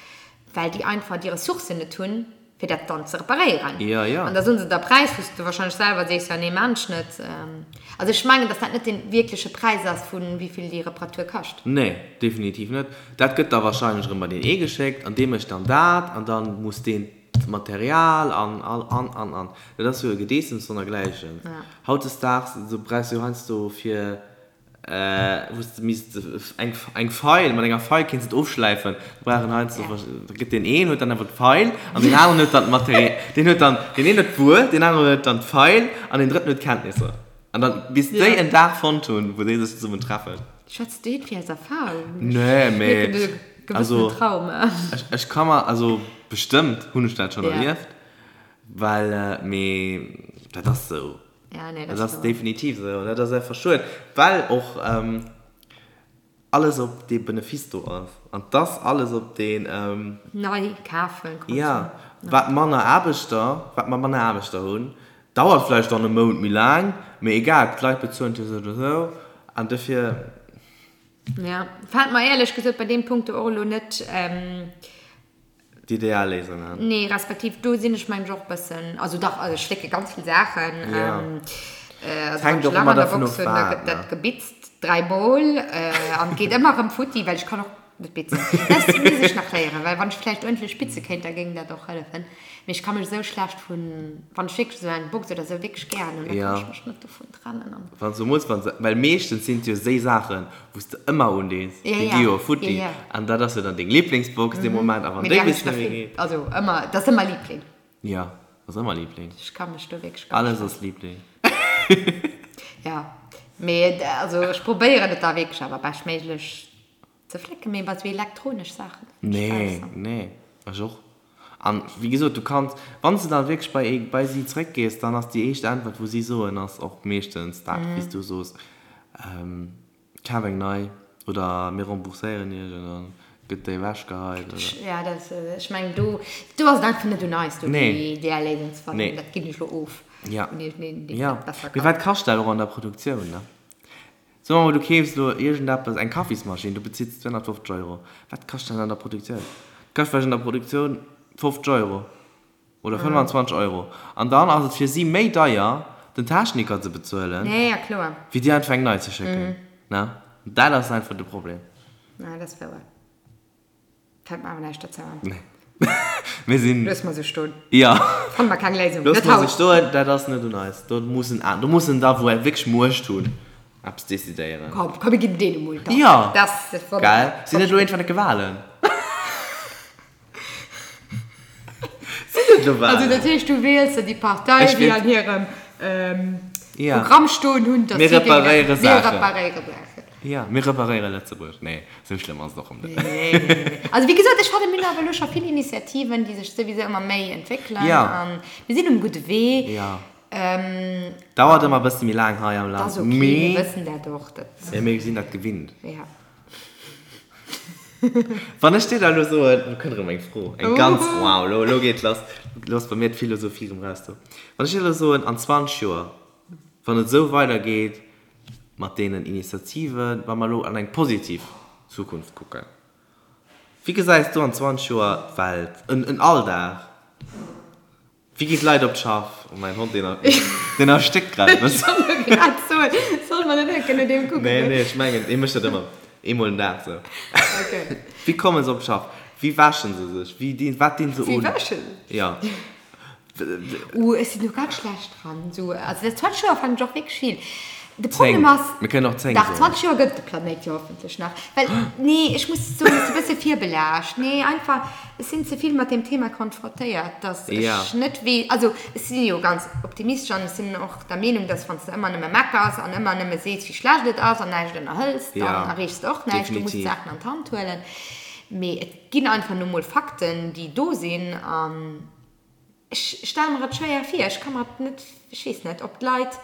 well déi einfach déi Ressourcen net hunn, fir dat dann ze reparéieren. Jo, jo. An da soen se der Präis, wou s de warscheinlech selwer sees, jo nee, maan ech net. Also ech mengen, datt dat net dee wierkleche Präis ass, vu wéi vill déi Reparatur kascht. Nee, definitiv net. Dat gëtt da warscheinlech erëm bei deen ee geschéckt an dee mécht dann dat an da muss deen d'Material an all an an an. Dat ass jo e Gedeessems sonnergläichen. Hautdesdaags esou brauchs du jo heiansdo fir wou s de misst eng eng Feil, mat enger Feil kéints et ofschläifen, da brauch en heiansdo da gëtt deen een huet dann awer d'Feil an deen aneren huet dann d'Material, deen huet dann, deen een huet d'Wuer, deen aneren huet dann d'Feil an deen drëtten huet d'Kenntnisser. An dann bis déi en Dag fonnt hunn, wou déi sech zesummen treffen. Schwätz du iergendwéi aus Erfahrung? Nee, mee also Trauma. Ech, ech ka mer, also bestëmmt hunn ech dat schonn erlieft, well, mee dat ass esou. Ja, nee, dat ass definitiv esou an dat ass einfach schued, well och alles op dee Benefice do ass an dass alles op deen. Nei kafen, Konsum. Ja, wat manner Aarbechter, wat mer manner Aarbechter hunn, Dauert vläicht dann e Mount méi laang, mee egal, d'Leit bezuelen et jo sou oder sou an dofir. Ja, fällt mer éierlech gesot bei deem Punkt do och elo net. D'ideal Léisung an. Nee, respektiv do sinn ech mengen ech och e bëssen, also dach, also ech flécke ganz vill Saachen. Ja. Also Et hänkt wann ech och Lach ëmmer an der dervun Box of hunn, da wat, gëtt ne? dat gebitzt dräimol an et geet ëmmer erëm futti, well ech kann och Net bitzen. Dat misst ech nach léieren, well wann ech vläicht uerdentlech bitze kéint, da géing dat och hëllefen. Mee ech ka mech esou schlecht vun, wann ech wierklech esou eng Box oder esou wierklech gären hunn, da kann ech mech net dovun trennen an. Wann se mools, wann se, well meeschtens sinn et jo séi Saachen, wou s de ëmmer undees, déi gi jo futti an dat ass jo dann deng Liblingsbox dee Moment a wann Mee déi déi hunn bis ech der net méi vill, geet. also ëmmer, dat ass ëmmer Liebling. Jo, ass ëmmer Liebling. Ech ka mech do wierklech ganz Alles schlecht. ass Liebling. Jo, mee also ech probéieren et da wierklech awer beschtméiglech Ze flécken, mee bei sou elektronesch Saachen fënn ech Nee, besser. nee, ech och. An wéi gesot, du kanns, wann s de dann wierklech bei ee, bei si zréckgees, dann ass déi éischt Äntwert, wou si soen, ass och meeschtens dat, wéi s du soos, Kaf eng nei oder mir rembourséieren iech an da gëtt déi ewechgeheit oder. Ja, dat, ech mengen, do, do ass et einfach net un eis, do déi ideal Léisung ze fannen. Nee. Dat ginn ech elo of Ja. un iergendeen, deen Ja. dat besser Mee kann. wat kascht dat och an der Produktioun, ne? Soe mer mol, du keefs elo iergendeppes, eng Kaffismaschinn, du bezills 250 Euro. Wat kascht dat an der Produktioun? Dat kascht vläicht an der Produktioun 50 Euro oder 25 Euro. An dann ass et fir si méi deier, den Techniker ze bezuelen, wéi dir einfach eng nei ze schécken. Ne? Dat ass einfach de Problem. Ja, dat ass wouer. Fält mer awer näischt dozou an. Nee. Mir sinn. Loosse mer sou stoen. Jo. Fanne mer keng Léisung. Loosse mer sou stoen, dat ass net un eis. Do mussen an, do mussen der, wou wierklech Muecht hunn, eppes decidéieren. Komm, komm, mir ginn deene mol da. Jo. Dat ass wonnerbar. Gell? Sinn net elo iergendwann enke Walen? Sinn net elo Walen? Also dat heescht, du wiels der déi Partei, déi an hirem Programm stoen hunn, datt si. Mir reparéiere Saachen. Mir reparéiere Saachen. Jo, mir reparéiere Lëtzebuerg. Nee, esou schlëmm ass et och erëm net. Nee, nee, nee. Also wéi gesot, ech fannen, mir hunn awer elo scho vill Initiativen, déi sech souwisou ëmmer méi entwéckelen. Jo. A mir sinn um gudde Wee. Jo. Dauert ëmmer e bësse méi laang hei am Land. Dat ass ok, mir wëssen dat och. Dat. Mee mir sinn dat gewinnt. Jo. Wann ech dir da elo soen, elo kënnt erëm eng Fro, eng ganz, wow, elo, elo geet lass, elo ass bei mir d'Philosophie erëm raus do. Wann ech dir elo soen, an 20 Joer, wann et esou weidergeet mat deenen Initiativen, wa mer elo an eng positiv Zukunft kucken, wéi gesäis du an 20 Joer d'Welt, en Alldag? Wéi ginn d'Leit op d'Schaff? Oh mäin Hond, deen, deen erstéckt grad e bëssen. Ech wollt grad soen, solle mer net enke no deem kucken? Nee, nee, ech mengen, dee mécht dat ëmmer eemol den Dag sou. Okay. Wéi komme se op d'Schaff? Wéi wäsche se sech? Wéi dinn, wat dinn se un? Wéi wäschen? Ja. Uh, ech sinn do ganz schlecht dran. Sou, also dat 20 Joer fannen ech och wierklech vill. De Problem ass. Mir kënnen och 10 soen. Dach, 20 Joer gëtt et de Planéit jo hoffentlech nach. Well, nee, ech muss soen, ech si e bësse virbelaascht. Nee, einfach, ech sinn ze vill mat deem Thema konfrontéiert, dass ech net weess, also ech si jo ganz optimistesch an ech sinn och der Meenung, dass wann s de ëmmer nëmme meckers an ëmmer nëmme sees, wéi schlecht et ass an näischt ënnerhëls, dann erreechs de och näischt. Du muss d'Saachen an d'Hand huelen. Mee et ginn einfach nu mol Fakten, déi do sinn an ech stelle mer et schwéier vir. Ech ka mer et net, ech weess net, ob d'Leit,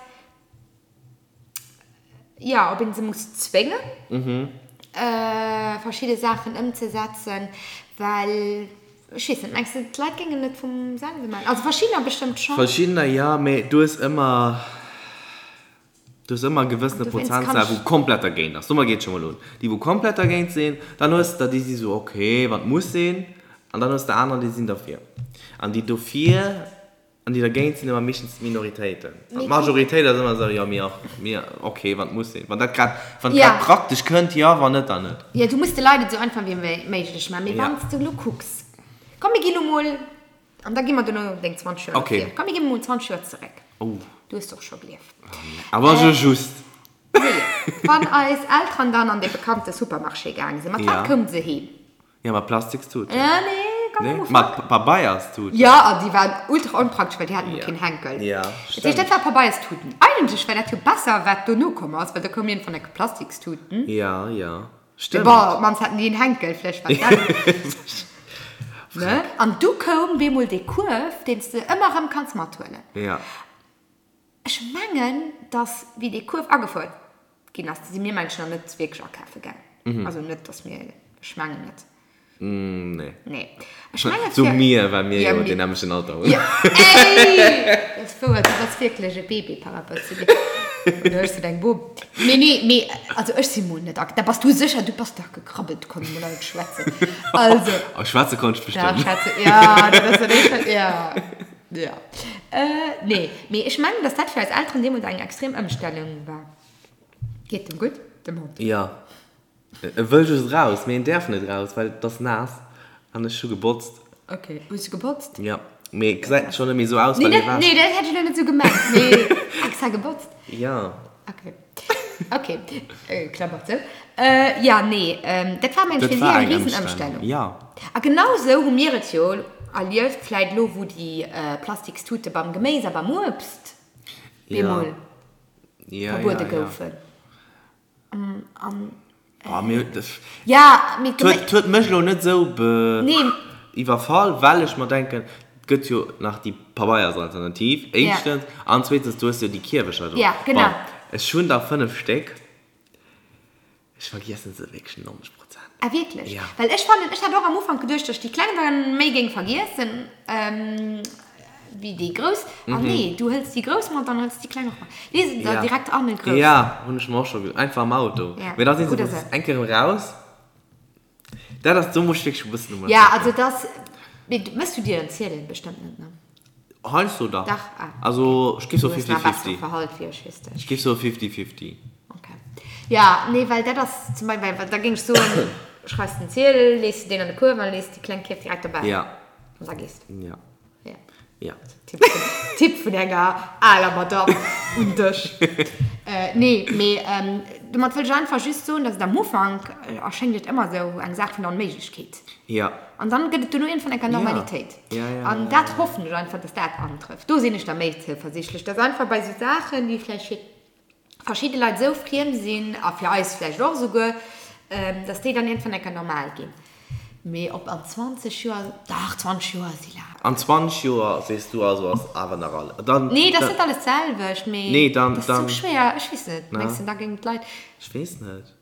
jo, ob een se muss zwéngen, verschidde Saachen ëmzesetzen, well, ech weess net, mengs de, d'Leit géingen et vum selwe maachen? Also verschiddener bestëmmt schonn. Verschiddener jo, mee du hues ëmmer, du hues ëmmer e gewëssene Prozentsaaz, wou komplett dergéint ass. Domat geet et scho mol un. Déi, wou komplett dergéint sinn, dann hues de der, déi si sou, ok, wann et muss sinn, an dann hues de anerer, déi sinn derfir. An déi dofir An déi dergéint sinn ëmmer meeschtens d'Minoritéiten. An d'Majoritéit ass ëmmer esou, jo, mir och, mir, ok, wann et muss sinn. Wann dat grad, wann et grad praktesch kënnt, jo, wann net, dann net. Jo, du muss de Leit et esou einfach wéi méiglech maachen. Mee wann s de elo kucks, komm mir ginn elo mol, an da gi mer duerno deng 20 Joer ervir. Komm mir gi mol 20 Joer zeréck. Du hues och scho gelieft. Awer jo just. Nee, wann eis Elteren dann an dee bekannte Supermarché gaange sinn, mat wat koume se heem? Ja, mat Plastikstuten. Äh, nee, ganz am Nee, Ufank. mat Pabeierstuten. Ja, an déi waren ultra onpraktesch, well déi haten jo keen Henkel. Ja, Dat heescht, stimmt. dat war Pabeierstuten. Eigentlech war dat jo besser, wat dono komm ass, well da koum iergendwann enke Plastikstuten. Ja, ja, stimmt. Bon, op d'mannst haten déi en Henkel, vläicht war dat. Ne? An du koum bemol dee Kuerf, deen s de ëmmer erëm kanns mathuelen. Ja. Ech mengen, dass, wéi dee Kuerf agefouert ginn ass, si mir Menschen nach net wierklech akafe gaang. Also net, dass mir, ech mengen net. Nee. Nee. Ech menge So fir. mir, well mir Ja, jo mir. deen nämmlechten Alter hunn. Ja, ey! Dat ass wouer, du bass wierklech e Baby par rapport zu mir. Oder ech sinn eng Bom. Mee nee, mee also ech si mol net ak. Da bass du sécher, du bass dach gekrabbelt, konnt mol alt schwätzen. Also. Oh, schwätze konnt ech Dach, bestimmt. schwätze, ja, dat ass dat éischt, ja. Ja. Nee, mee ech mengen, dass dat fir eis Elteren deemools eng extrem Ëmstellung war. Geet dem gutt, dem Hond? Jo. E wëll just raus, mee en däerf net raus, well et ass naass an ech hu gebotzt. Ok, hues du gebotzt? Jo, mee et gesäit schonn net méi esou aus, Nee, well e dat, wäscht. nee, dat hätt ech elo net esou gemengt, mee extra gebotzt? Jo. Ok. Ok, Klammer zou. Jo, nee, dat war mengen ech fir si eng Risenëmstellung. Jo. A genau esou hu mir et jo erlieft, vläit elo wou déi Plastikstute beim Geméis a beim Uebst bemol verbuede goufen. An Jo, mee et huet mech elo net esou iwwerfall, well ech mer denken, et gëtt jo nach déi Pabeiersalternativ, éischtens, an zweetens, du hues jo déi Kierwecher do. Bon, ech hunn der 5 Stéck, ech vergiessen se wierklech 90 Prozent. Ah wierklech? Well ech fannen, ech hat och am Ufank geduecht, datt ech déi kleng dann méi géing vergiessen. Wéi déi grouss. Ah nee, du hëls déi grouss mat, dann hëls déi kleng och mat. Lee se der direkt an e groussen. Ja, hunn ech mer och scho geduecht. Einfach am Auto. Ja. Mee da sinn se Oder sou. eng Kéier erëm raus. Dat ass, do muss ech wierklech e bëssen um Ja, also dass, mee mëss du dir en Ziedel? Bestëmmt net, ne? Heiansdo dach. Dach, ah. Also ech géif soe Du hues nach fifty-fifty. bessere Verhalt wéi ech, weess de. Ech géif soe fifty-fifty. Okay. Ja, nee, well dat ass zum Beispill, well da géing ech soen. schreifs den Ziedel, lees de deen an de Kuerf an lees déi kleng Kierf direkt dobäi. Ja. An da gees de. Ja. Ja. Ja. Tipp vun, Tipp vun enger aler Madame un dech. Nee, mee domat wëll ech einfach just soen, dass et am Ufank erschéngt et ëmmer esou eng Saach vun der Onméiglechkeet. Ja. An dann gëtt et duerno iergendwann enker Normalitéit. Ja, ja, ja, An dat hoffen ech einfach, dass dat antrëfft. Do sinn ech da méi zouversichtlech, dass einfach bei esou Saachen, déi vläicht fir verschidde Leit esou friem sinn, a fir eis vläicht och esouguer, dass déi dann iergendwann enker normal ginn. Mee ob an 20 Joer, dach, 20 Joer si laang. An 20 Joer, sees du also, ass awer nach all, dann. Nee, dat ass net alles d'selwecht, mee Nee, dann, dat ass dann. esou schwéier, ech weess net. Mengs de, da géingen d'Leit. Ech weess net.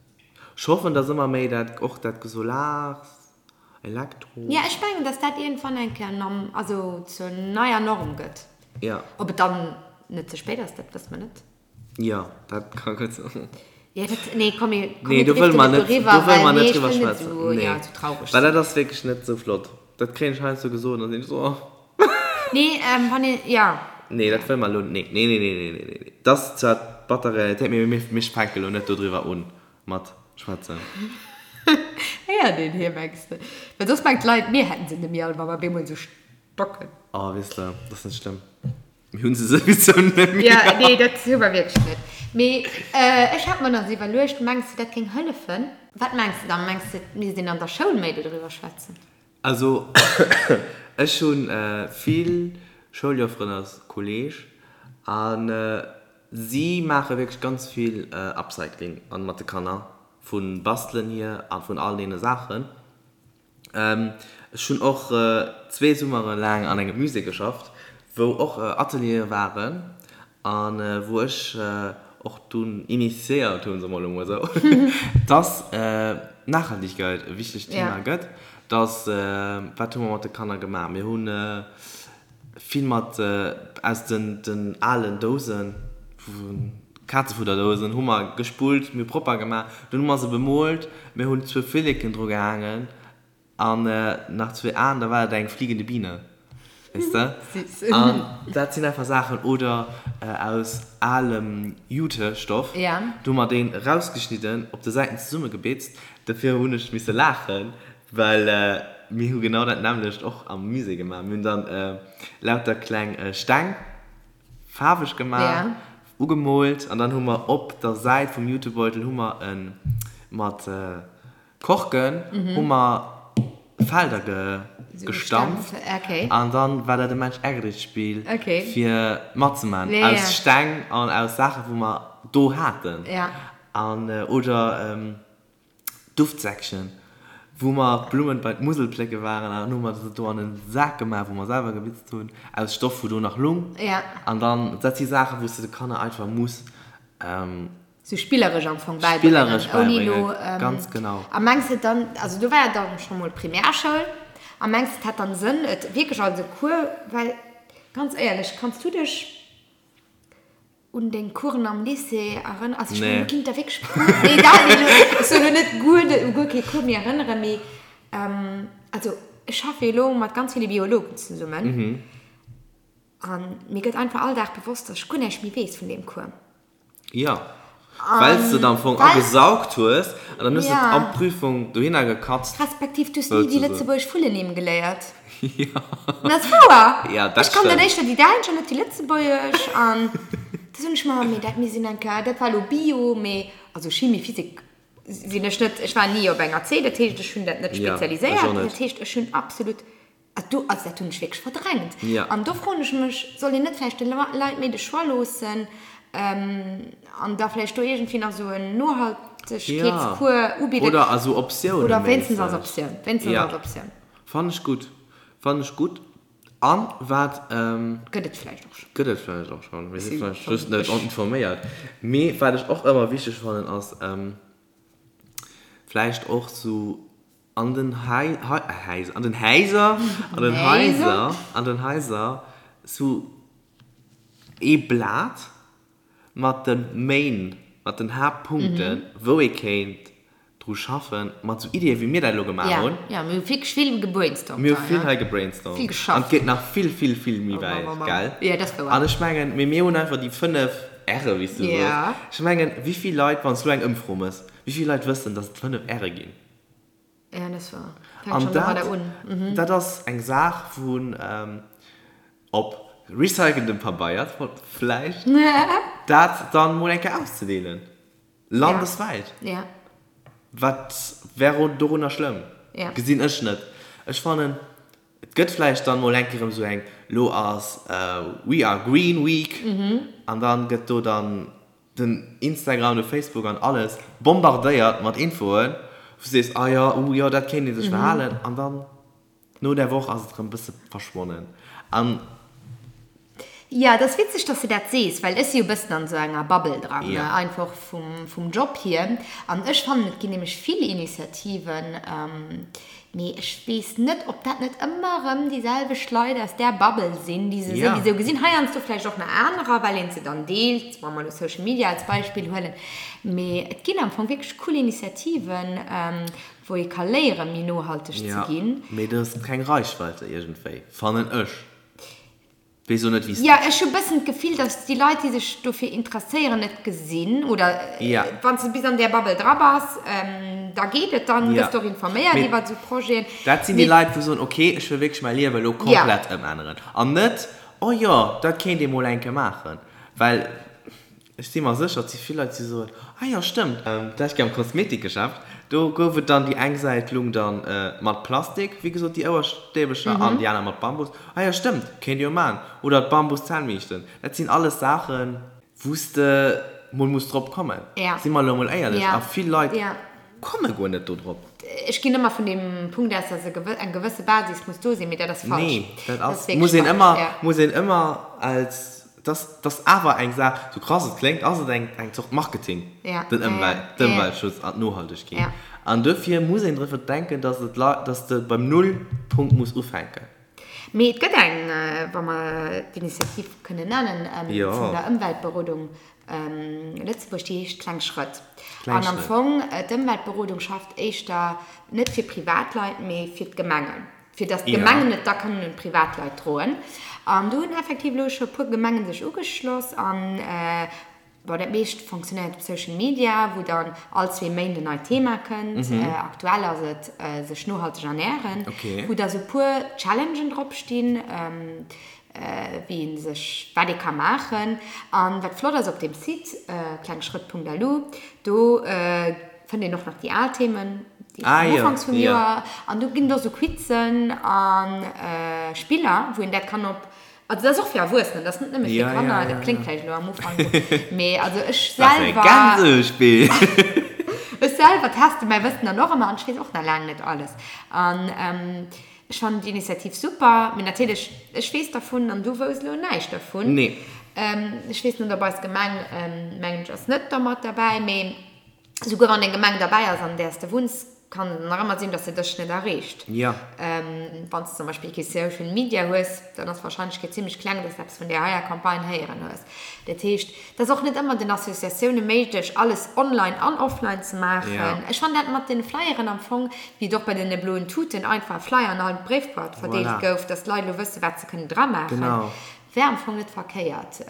Ech hoffen, dass ëmmer méi dat, och dat Solars, Elektro. Ja, ech mengen, dass dat iergendwann eng Kéier Norm, also zur neier Norm gëtt. Ja. Ob et dann net ze spéit ass, dat wësse mer net. Jo, dat ka gutt sinn. Ja, dat, nee, komm, mir, komm, nee, do wëlle mer net, doriwwer, do wëlle mer net drüber schwätzen. Nee, nee. Ja, zu traurig Well dat ass wierklech net esou flott. Dat kréien ech heiansdo gesot an da sinn ech esou, oh. Nee, ähm, wann een, ja. Nee, dat wëlle mer elo, nee, nee, nee, nee, nee, nee, nee. Dat ass zwar d'batter Realitéit, mee mir, mir fänke elo net dodriwwer un mat schwätzen. Héiert een hie, mengs de? Well soss mengt d'Leit, mir hätten se net méi all, wa mer bemol esou stocken. Oh, weess de, dat ass net schlëmm. Mir hunn se souwisou net méi. Ja, nee, dat hu mer wierklech net. Mee ech hat mer nach esou iwwerluecht, mengs de, dat géing hëllefen? Wat mengs de dann? Mengs de, et misst een an der Schoul méi dodriwwer schwätzen? Also, ech hu vill Schouljofferen als Kolleeg a si maache wierklech ganz vill Upcycling an mat de Kanner, vu Bastelen hier a vun all deene Saachen. Ech hunn och zwee Summere laang an engem Musée geschafft, wou och Ateliere waren a wou ech och dunn initiéiert hunn, soe mer elo mol esou, dass Nachhaltigkeit e wichtegt Thema gëtt. Dass, wat hu mer mat de Kanner gemaach? Mir hu Vill mat aus den alen Dousen, Kazefudderdousen, hu mer gespullt, mir hu propper gemaach, dunn hu mer se bemoolt, mir hunn zwou Flilleken dru gehaangen an nach zwee Aen, da war et eng fliegende Biene, weess de. An dat sinn einfach Saachen, oder aus alem Jutestoff, do hu mer deen erausgeschnidden, op de Säiten zesummegebitzt, dofir hunn ech misse laachen, Well mir hu genau dat nämmlecht och am Musée gemaach. Mir hunn dann lauter kleng Steng faarweg gemaach, ugemoolt an dann hu mer op der Säit vum Jutebeutel hu mer e mat Korken hu mer Felder gestampft an dann war dat e Mensch-ärger-dich-Spill fir matzemaachen aus Steng an aus Saache wou mer do haten an oder Duftsäckchen, wou mer d'Blummen bei d'Musel plécke waren an dann hu mer se do an en Sak gemaach, wou mer selwer gebitzt hunn, aus Stoff, wou do nach lung. An dann, dat si Saachen, wou s de de Kanner einfach muss. Sou spilleresch am Fong bäibréngen. Spilleresch bäibréngen, ganz genau. A mengs de dann, also do war jo dann scho mol Primärschoul, a mengs de et hätt dann Sënn, et wierklech als e Cours, well ganz éierlech, kanns du dech Un deng Coursen am Lycée erënneren? Also ech mengen, du kinnt der wierklech guer, nee, dat, nee, elo, ech soen elo net guer net, u guer kee Cours méi erënneren, mee also ech schaffe jo elo mat ganz ville Biologen zesummen an mir gëtt einfach all Dag bewosst, dass ech guer näischt méi weess vun deem Cours. Jo, well s de et am Fong agesaugt hues an dann hues de et an d'Prüfung dohinner gekatzt. Respektiv, du hues ni déi lëtzebuergesch Vullennimm geléiert. Jo. Dat ass wouer. Ja, dat Ech kann dat éischter déi däitsch an net déi lëtzebuergesch. An da soen ech mer, mee dat mir sinn eng Kéier, dat war elo Bio, mee also Chimie, Physik sinn ech net, ech war ni op enger C, dat heescht, ech hunn dat net spezialiséiert. Dat heescht, ech hunn absolut, do, also dat hunn ech wierklech verdrängt. An do froen ech mech, soll een net vläicht de Leit méi de Choix loossen an da vläicht do iergendwéi nach esou en Nohaltegkeetscours ubidden? Oder als Optioun. Oder wéinstens als Optioun, wéinstens als Optioun. Fannen ech gutt. Fannen ech gutt. An wat. Gëtt et vläicht och schonn. Gëtt et vläicht och schonn. Mir si vläicht just net informéiert. Mee wat ech och ëmmer wichteg fannen ass vläicht och sou an den Hai, Häiser, an den Häiser, an den Haiser, an den Haiser sou ee Blat mat de Main, mat den Haaptpunkten, wou ee kéint dru schaffen, mat sou Iddien, wéi mir dat elo gemaach hunn. Jo, mir hu wierklech vill gebrainstormt Mir hu vill hei gebrainstormt. Vill geschafft. An et geet nach vill, vill, vill méi wäit, gell? Jo, dat ass wouer. An ech mengen, mee mir hunn einfach déi 5 R'e, wéi s du soos. Ech mengen, wéi vill Leit, wann s du eng Ëmfro mëss, wéi vill Leit wëssen, dass et 5 R'e ginn? Ja, dat ass wahr. Fänkt An schon domadder dat, un. dat ass eng Saach wou op recyceltem Pabeier vläicht, dat dann mol eng Kéier auszedeelen. Landeswäit. Ja. Wat wär dorunner schlëmm? Ja. Gesinn ech net. Ech fannen, et gëtt vläicht dann mol eng Kéier erëm esou eng, lo ass We are Green Week an dann gëtt do dann den Instagram, de Facebook an alles bombardéiert mat Infoen, wou s du sees, ah jo, uh jo, dat kéint ee sech verhalen an dann no där Woch ass et erëm e bësse verschwonnen an. Jo, et ass witzeg, dass de dat sees, well ech si jo e bëssen an esou enger Bubble dran, Ja. einfach vum, vum Job hier. An ech fannen, et ginn nämlech vill Initiativen, mee ech weess net, ob dat net ëmmer erëm déi selwecht Leit aus där Bubble sinn, déi se Ja. souwisou gesinn. Heiansdo vläicht och nach anerer, well een se dann deelt, wa mer elo Social Media als Beispill huelen. Mee et ginn am Fong wierklech cool Initiativen, wou ee ka léieren, méi nohalteg ze Ja, ginn. mee do ass keng Reichweite iergendwéi, fannen ech. Weess och net wéi s. Jo, ech hu bëssen d'Gefill, datt déi Leit, déi sech dofir interesséieren, et gesinn. Oder Ja. wann s de bis an där Bubble dra bass, da geet et, dann Ja. gëss de och informéiert Mee iwwer esou Projeten. dat sinn déi Mee. Leit, wou soen, okay, ech wëll wierklech mäi Liewe elo Ja. komplett ëmänneren. An net, oh jo, dat kéint ee mol eng Kéier maachen. Well Ech si mer sécher, et si vill Leit, déi soen, Ah jo, stëmmt. D'lescht Kéier am Kosmetikgeschäft, do gouf et dann, déi eng Säit lung dann mat Plastik, wéi gesot, déi Ouerstäbecher, an déi aner mat Bambus. Ah jo, stëmmt, kéint ee jo maachen. Oder d'Bambus-Zännbiischten. Dat sinn alles Saachen, wou s de mol muss drop kommen. Si mer elo mol éierlech. A vill Leit komme guer net do drop. Ech ginn ëmmer vun deem Punkt aus, dass eng gewësse Basis muss do sinn, mee dat ass falsch. Nee, dat ass, muss een ëmmer, muss een ëmmer als. Dat ass awer eng Saach, sou krass et kléngt, ass et eng eng Zort Marketing, den Ëmwelt, d'Ëmweltschutz an d'Nohaltegkeet. An duerfir muss een drëffer denken, dass et Leit, dass de beim Nullpunkt muss ufänken. Mee et gëtt eng, wa mer d'Initiativ kënnen nennen, vun der Ëmweltberodung Lëtzebuerg, déi heescht Kleng Schrëtt. An am Fong, d'Ëmweltberodung schafft éischter net fir Privatleit, mee fir d'Gemengen. fir dass d'Gemengen et da kënnen un d'Privatleit droen. An do hunn effektiv elo scho e puer Gemengen sech ugeschloss an, bon, dat meescht fonctionnéiert op Social Media, wou dann all zwee Méint en neit Thema kënnt. Aktuell ass et sech nohalteg ernären, wou da sou e puer Challengen drop stinn, wéi ee sech, wat ee ka maachen. An wat flott ass op deem Site, klengschrëtt.lu, do fënnt een och nach déi al Themen, déi Ah, vum jo, Ufanks vum jo. Joer. An do ginn et och sou Quizen a Spiller, wou een dat kann op, also dat ass och fir Erwuessenen, dat ass net nëmme fir Ja, ja, Kanner, ja, dat kléngt ja. vläicht elo am Ufank esou, mee also ech Dat ass e selwer, Gänsespill! ech selwer teste mäi Wëssen dann och ëmmer an ech weess och nach laang net alles. An ech fannen d'Initiativ super, mee natierlech, ech weess dervun an du wouss elo näischt dervun. Nee. Ech weess net, ob eis Gemeng, mengen ech, ass net dermat derbäi, mee. Souguer wann eng Gemeng derbäi ass, an där s de wunns, kann et nach ëmmer sinn, dass se dech net erreecht. Ja. Wann s de zum Beispill kee Social Media hues, dann ass d'Warscheinlechkeet zimmlech kleng, dass de eppes vun där heier Campagne héieren hues. Dat heescht, et ass och net ëmmer den Associatioune méiglech, alles online an offline ze maachen. Ja. Ech fannen dat mat den Flyeren am Fong, wéi et och bei den bloen Tuten einfach e Flyer an all Bréifboîte verdeelt Voilà. gouf, dass d'Leit elo wëssen, wat se kënnen dramaachen. Genau. Wär am Fong net verkéiert.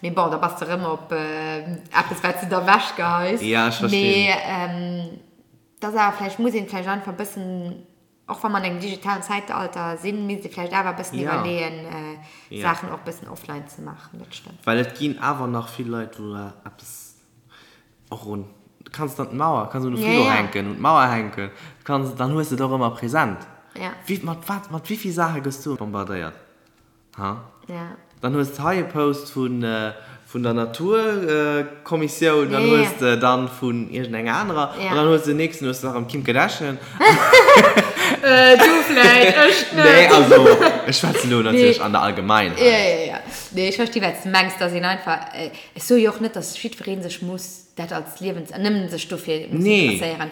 Mee bon, da bass de rëm op eppes, wat s de da wechgeheis. Ja, ech verstinn. Mee et ass awer vläicht, muss een vläicht einfach e bëssen, och wa mer an engem digitalen Zäitalter sinn, misst ee vläicht awer e bëssen Ja. iwwerleeën, Ja. Saachen och e bëssen offline ze maachen. Dat stëmmt. Well et ginn awer nach vill Leit, wou eppes och un, du kanns et an d'Mauer, kanns un de Ja, Frigo ja. hänken, un d'Mauer hänken, du kanns, dann hues de et och ëmmer present. Ja. Wéi, mat wat, mat wéi vill Saache gëss du bombardéiert? Ha? Ja. Dann hues de hei e Post vun, vun der Naturkommissioun, dann Ja, ja. hues de dann vun iergendenger anerer, Ja. an dann hues de den nächsten, hues de nach ëm Kim Kardashian. Du vläit, ech net. Nee, also, ech schwätzen elo natierlech Nee. an der Allgemeinheit. Ja, ja, ja. Nee, ech versti wat s de mengs, dass een einfach, ech soe jo och net, dass jiddweree sech muss dat als Liewens, nëmmen sech dofir muss Nee. interesséieren.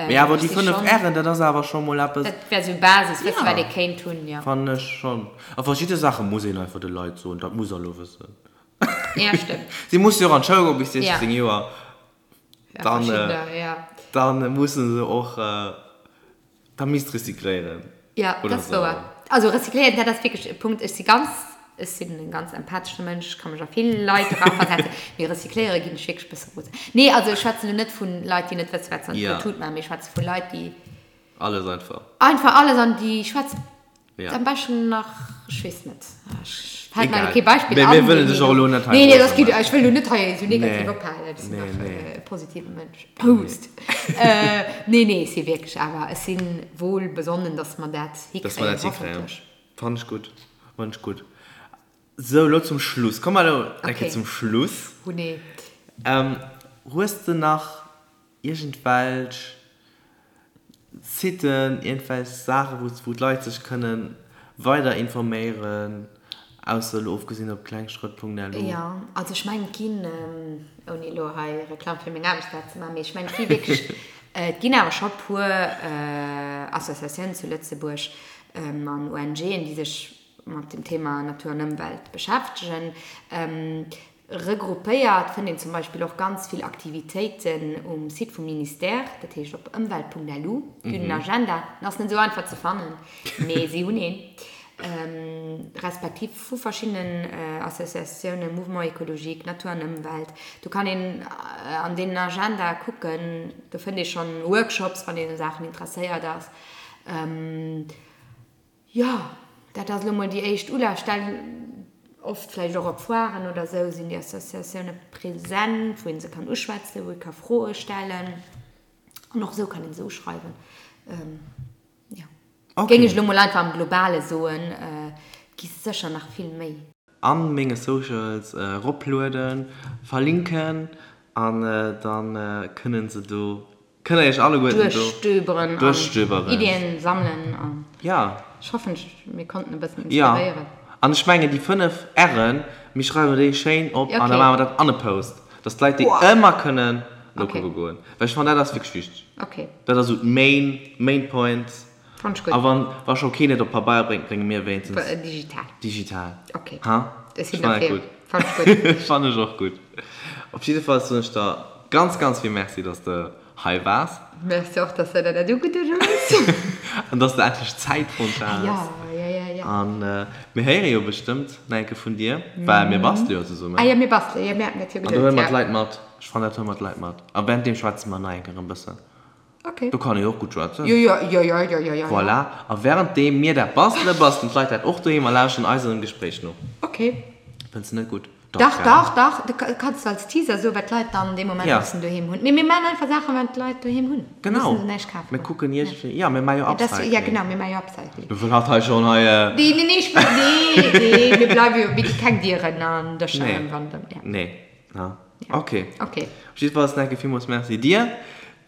Mee awer Ech déi si 5 schonn, R'en, dat ass awer scho mol eppes. dat wär sou Basis, wësse Ja. wat ee kéint hunn, jo. Fannen ech schonn. A verschidde Saache muss een einfach de Leit soen, dat muss der elo wëssen. Ja, stëmmt. Si musse jo och an d'Schoul goen bis 16 Ja. Joer. Ja, Dann, verschiddener, ja. dann musse se och, da misst recycléieren. Ja, Oder dat ass sou. wouer. Also recycléieren, dat ass wierklech e Punkt. Ech si ganz, ech sinn e ganz empathesche Mënsch, ech ka mech a vill Leit eraversetzen, mee recycléiere ginn ech wierklech e bësse rosen. Nee, also ech schwätzen elo net vu Leit, déi net wësse wat se an Ja. d'Tut maachen, mee ech schwätze vu Leit, déi. Alles einfach. Einfach alles an déi schwätzt am beschten nach, ech weess net, ech fält mer elo kee Beispill an. Mee mir wëllen dech och elo net hei. Nee, nee, dat geet, ech wëll elo net hei esou negativ ophalen, ech sinn nach e positive Mënsch. Proust. Nee, nee, ech si wierklech awer, ech si wohl besonnen, dass mer dat hikréien, hoffentlech. Fannen ech gutt, fannen ech gutt. Sou, elo zum Schluss. Komm mer elo eng Kéier zum Schluss. Oh nee. Hues de nach iergendwelch Siten, iergendwelch Saachen, wou wou d'Leit sech kënne weider informéieren, ausser elo ofgesinn op klengschrëtt.lu? Jo, also ech mengen et ginn, ouni elo hei Reklamm fir meng Aarbechtsplaz ze maachen, mee ech mengen et gi wierklech, et ginn awer scho puer Associatiounen zu Lëtzebuerg an ONGen, déi sech mat dem Thema Natur an Ëmwelt beschäftegen. Regroupéiert fënnt een zum Beispill och ganz vill Aktivitéiten um Site vum Ministère, dat heescht op ëmwelt.lu. Déi hunn en Agenda, den ass net esou einfach ze fannen, mee si hunn een, respektiv vu verschiddenen Associatiounen, Mouvement Ecologique, Natur an Ëmwelt. Do kann een an deenen Agenda kucken, do fënnt ee schonn Workshops, wann een u Saachen interesséiert ass. Jo, dat ass elo mol déi éischt Ulafstell. Oft vläicht och op Foiren oder esou sinn déi Associatioune present, wou ee se kann uschwätzen, wou ee ka Froe stellen. An och esou kann ee se uschreiwen. Jo, géing ech elo mol einfach am Globale soen. Et gi sécher nach vill méi. An menge Socials eroplueden, verlinken an dann kënnen se do Kënnt der iech alleguerten do duerchstöberen an duerchstöberen. Iddien sammelen an Ja. ech hoffen mir konnten e bëssen Ja. inspiréieren. An ech mengen déi 5 R'en, mir schreiwen déi schéin op an da Okay. maache mer dat an e Post, dass d'Leit déi Boah. ëmmer kënnen Okay. nokucke goen. Well ech fannen dat ass wierklech wichteg. Okay. Dat ass esou d'main, main point. Fann ech gutt. A wann, wa scho keen et op Pabeier bréngt, brénge mir wéinstens. Digital. Digital. Okay. Ha? Ech sinn Ech fannen dat derfir. gutt. Fann ech gutt. Fannen ech och gutt. Op jidde Fall soen ech der ganz, ganz vill Merci, dass de hei waars. Merci och, dass de der dat ugeduet hues. An dass de endlech Zäit fonnt has. Ja, ja, ja, ja. An mir héiere jo bestëmmt nach eng Kéier vun dir, well mir bastele jo zesummen. Ah jo, mir bastele, jo, mir haten dat jo An do huele geduet, mer ja. d'Leit mat. Ech fannen, dat huele mer d'Leit mat. A währenddeem schwätze mer nach eng Kéier e bëssen. Okay. Do kann ee jo och gutt schwätzen. Jo, jo, jo, jo, jo, jo, jo. Voilà. A währenddeem mir dat bastelen, bastelen d'Leit dat och doheem a lauschteren eisem Gespréich no. Okay. Fënns de net gutt? Dach, dach, dach. Du kanns du als Teaser soen, wat d'Leit dann dee Moment Ja. mussen doheem hunn. Mee mir maachen einfach Saachen, wat d'Leit doheem hunn. Genau. Mussen se näischt kafen. Mir kucken iergendwéi, ja, mir maache jo Ja, das, Upcycling. ja, genau, mir maache jo Upcycling. Mir wëllen hatt hei schonn hei. Nee, nee, nee, ech wëll, nee, nee, mir bleiwe jo, mir gi keng Dieren an Dëscher Nee. ëmwandeln. Ja. Nee. Ja. Ja. Okay. Okay. Op jiddefalls nach eng Kéier villmools Merci dir.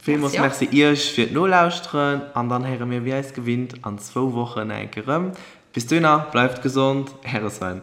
Villmools Merci och. Merci iech fir d'Nolauschteren an dann héiere mir wéi eis gewinnt an zwou Wochen nach eng Kéier erëm. Bis dohinner, bleift gesond, Äre Sven.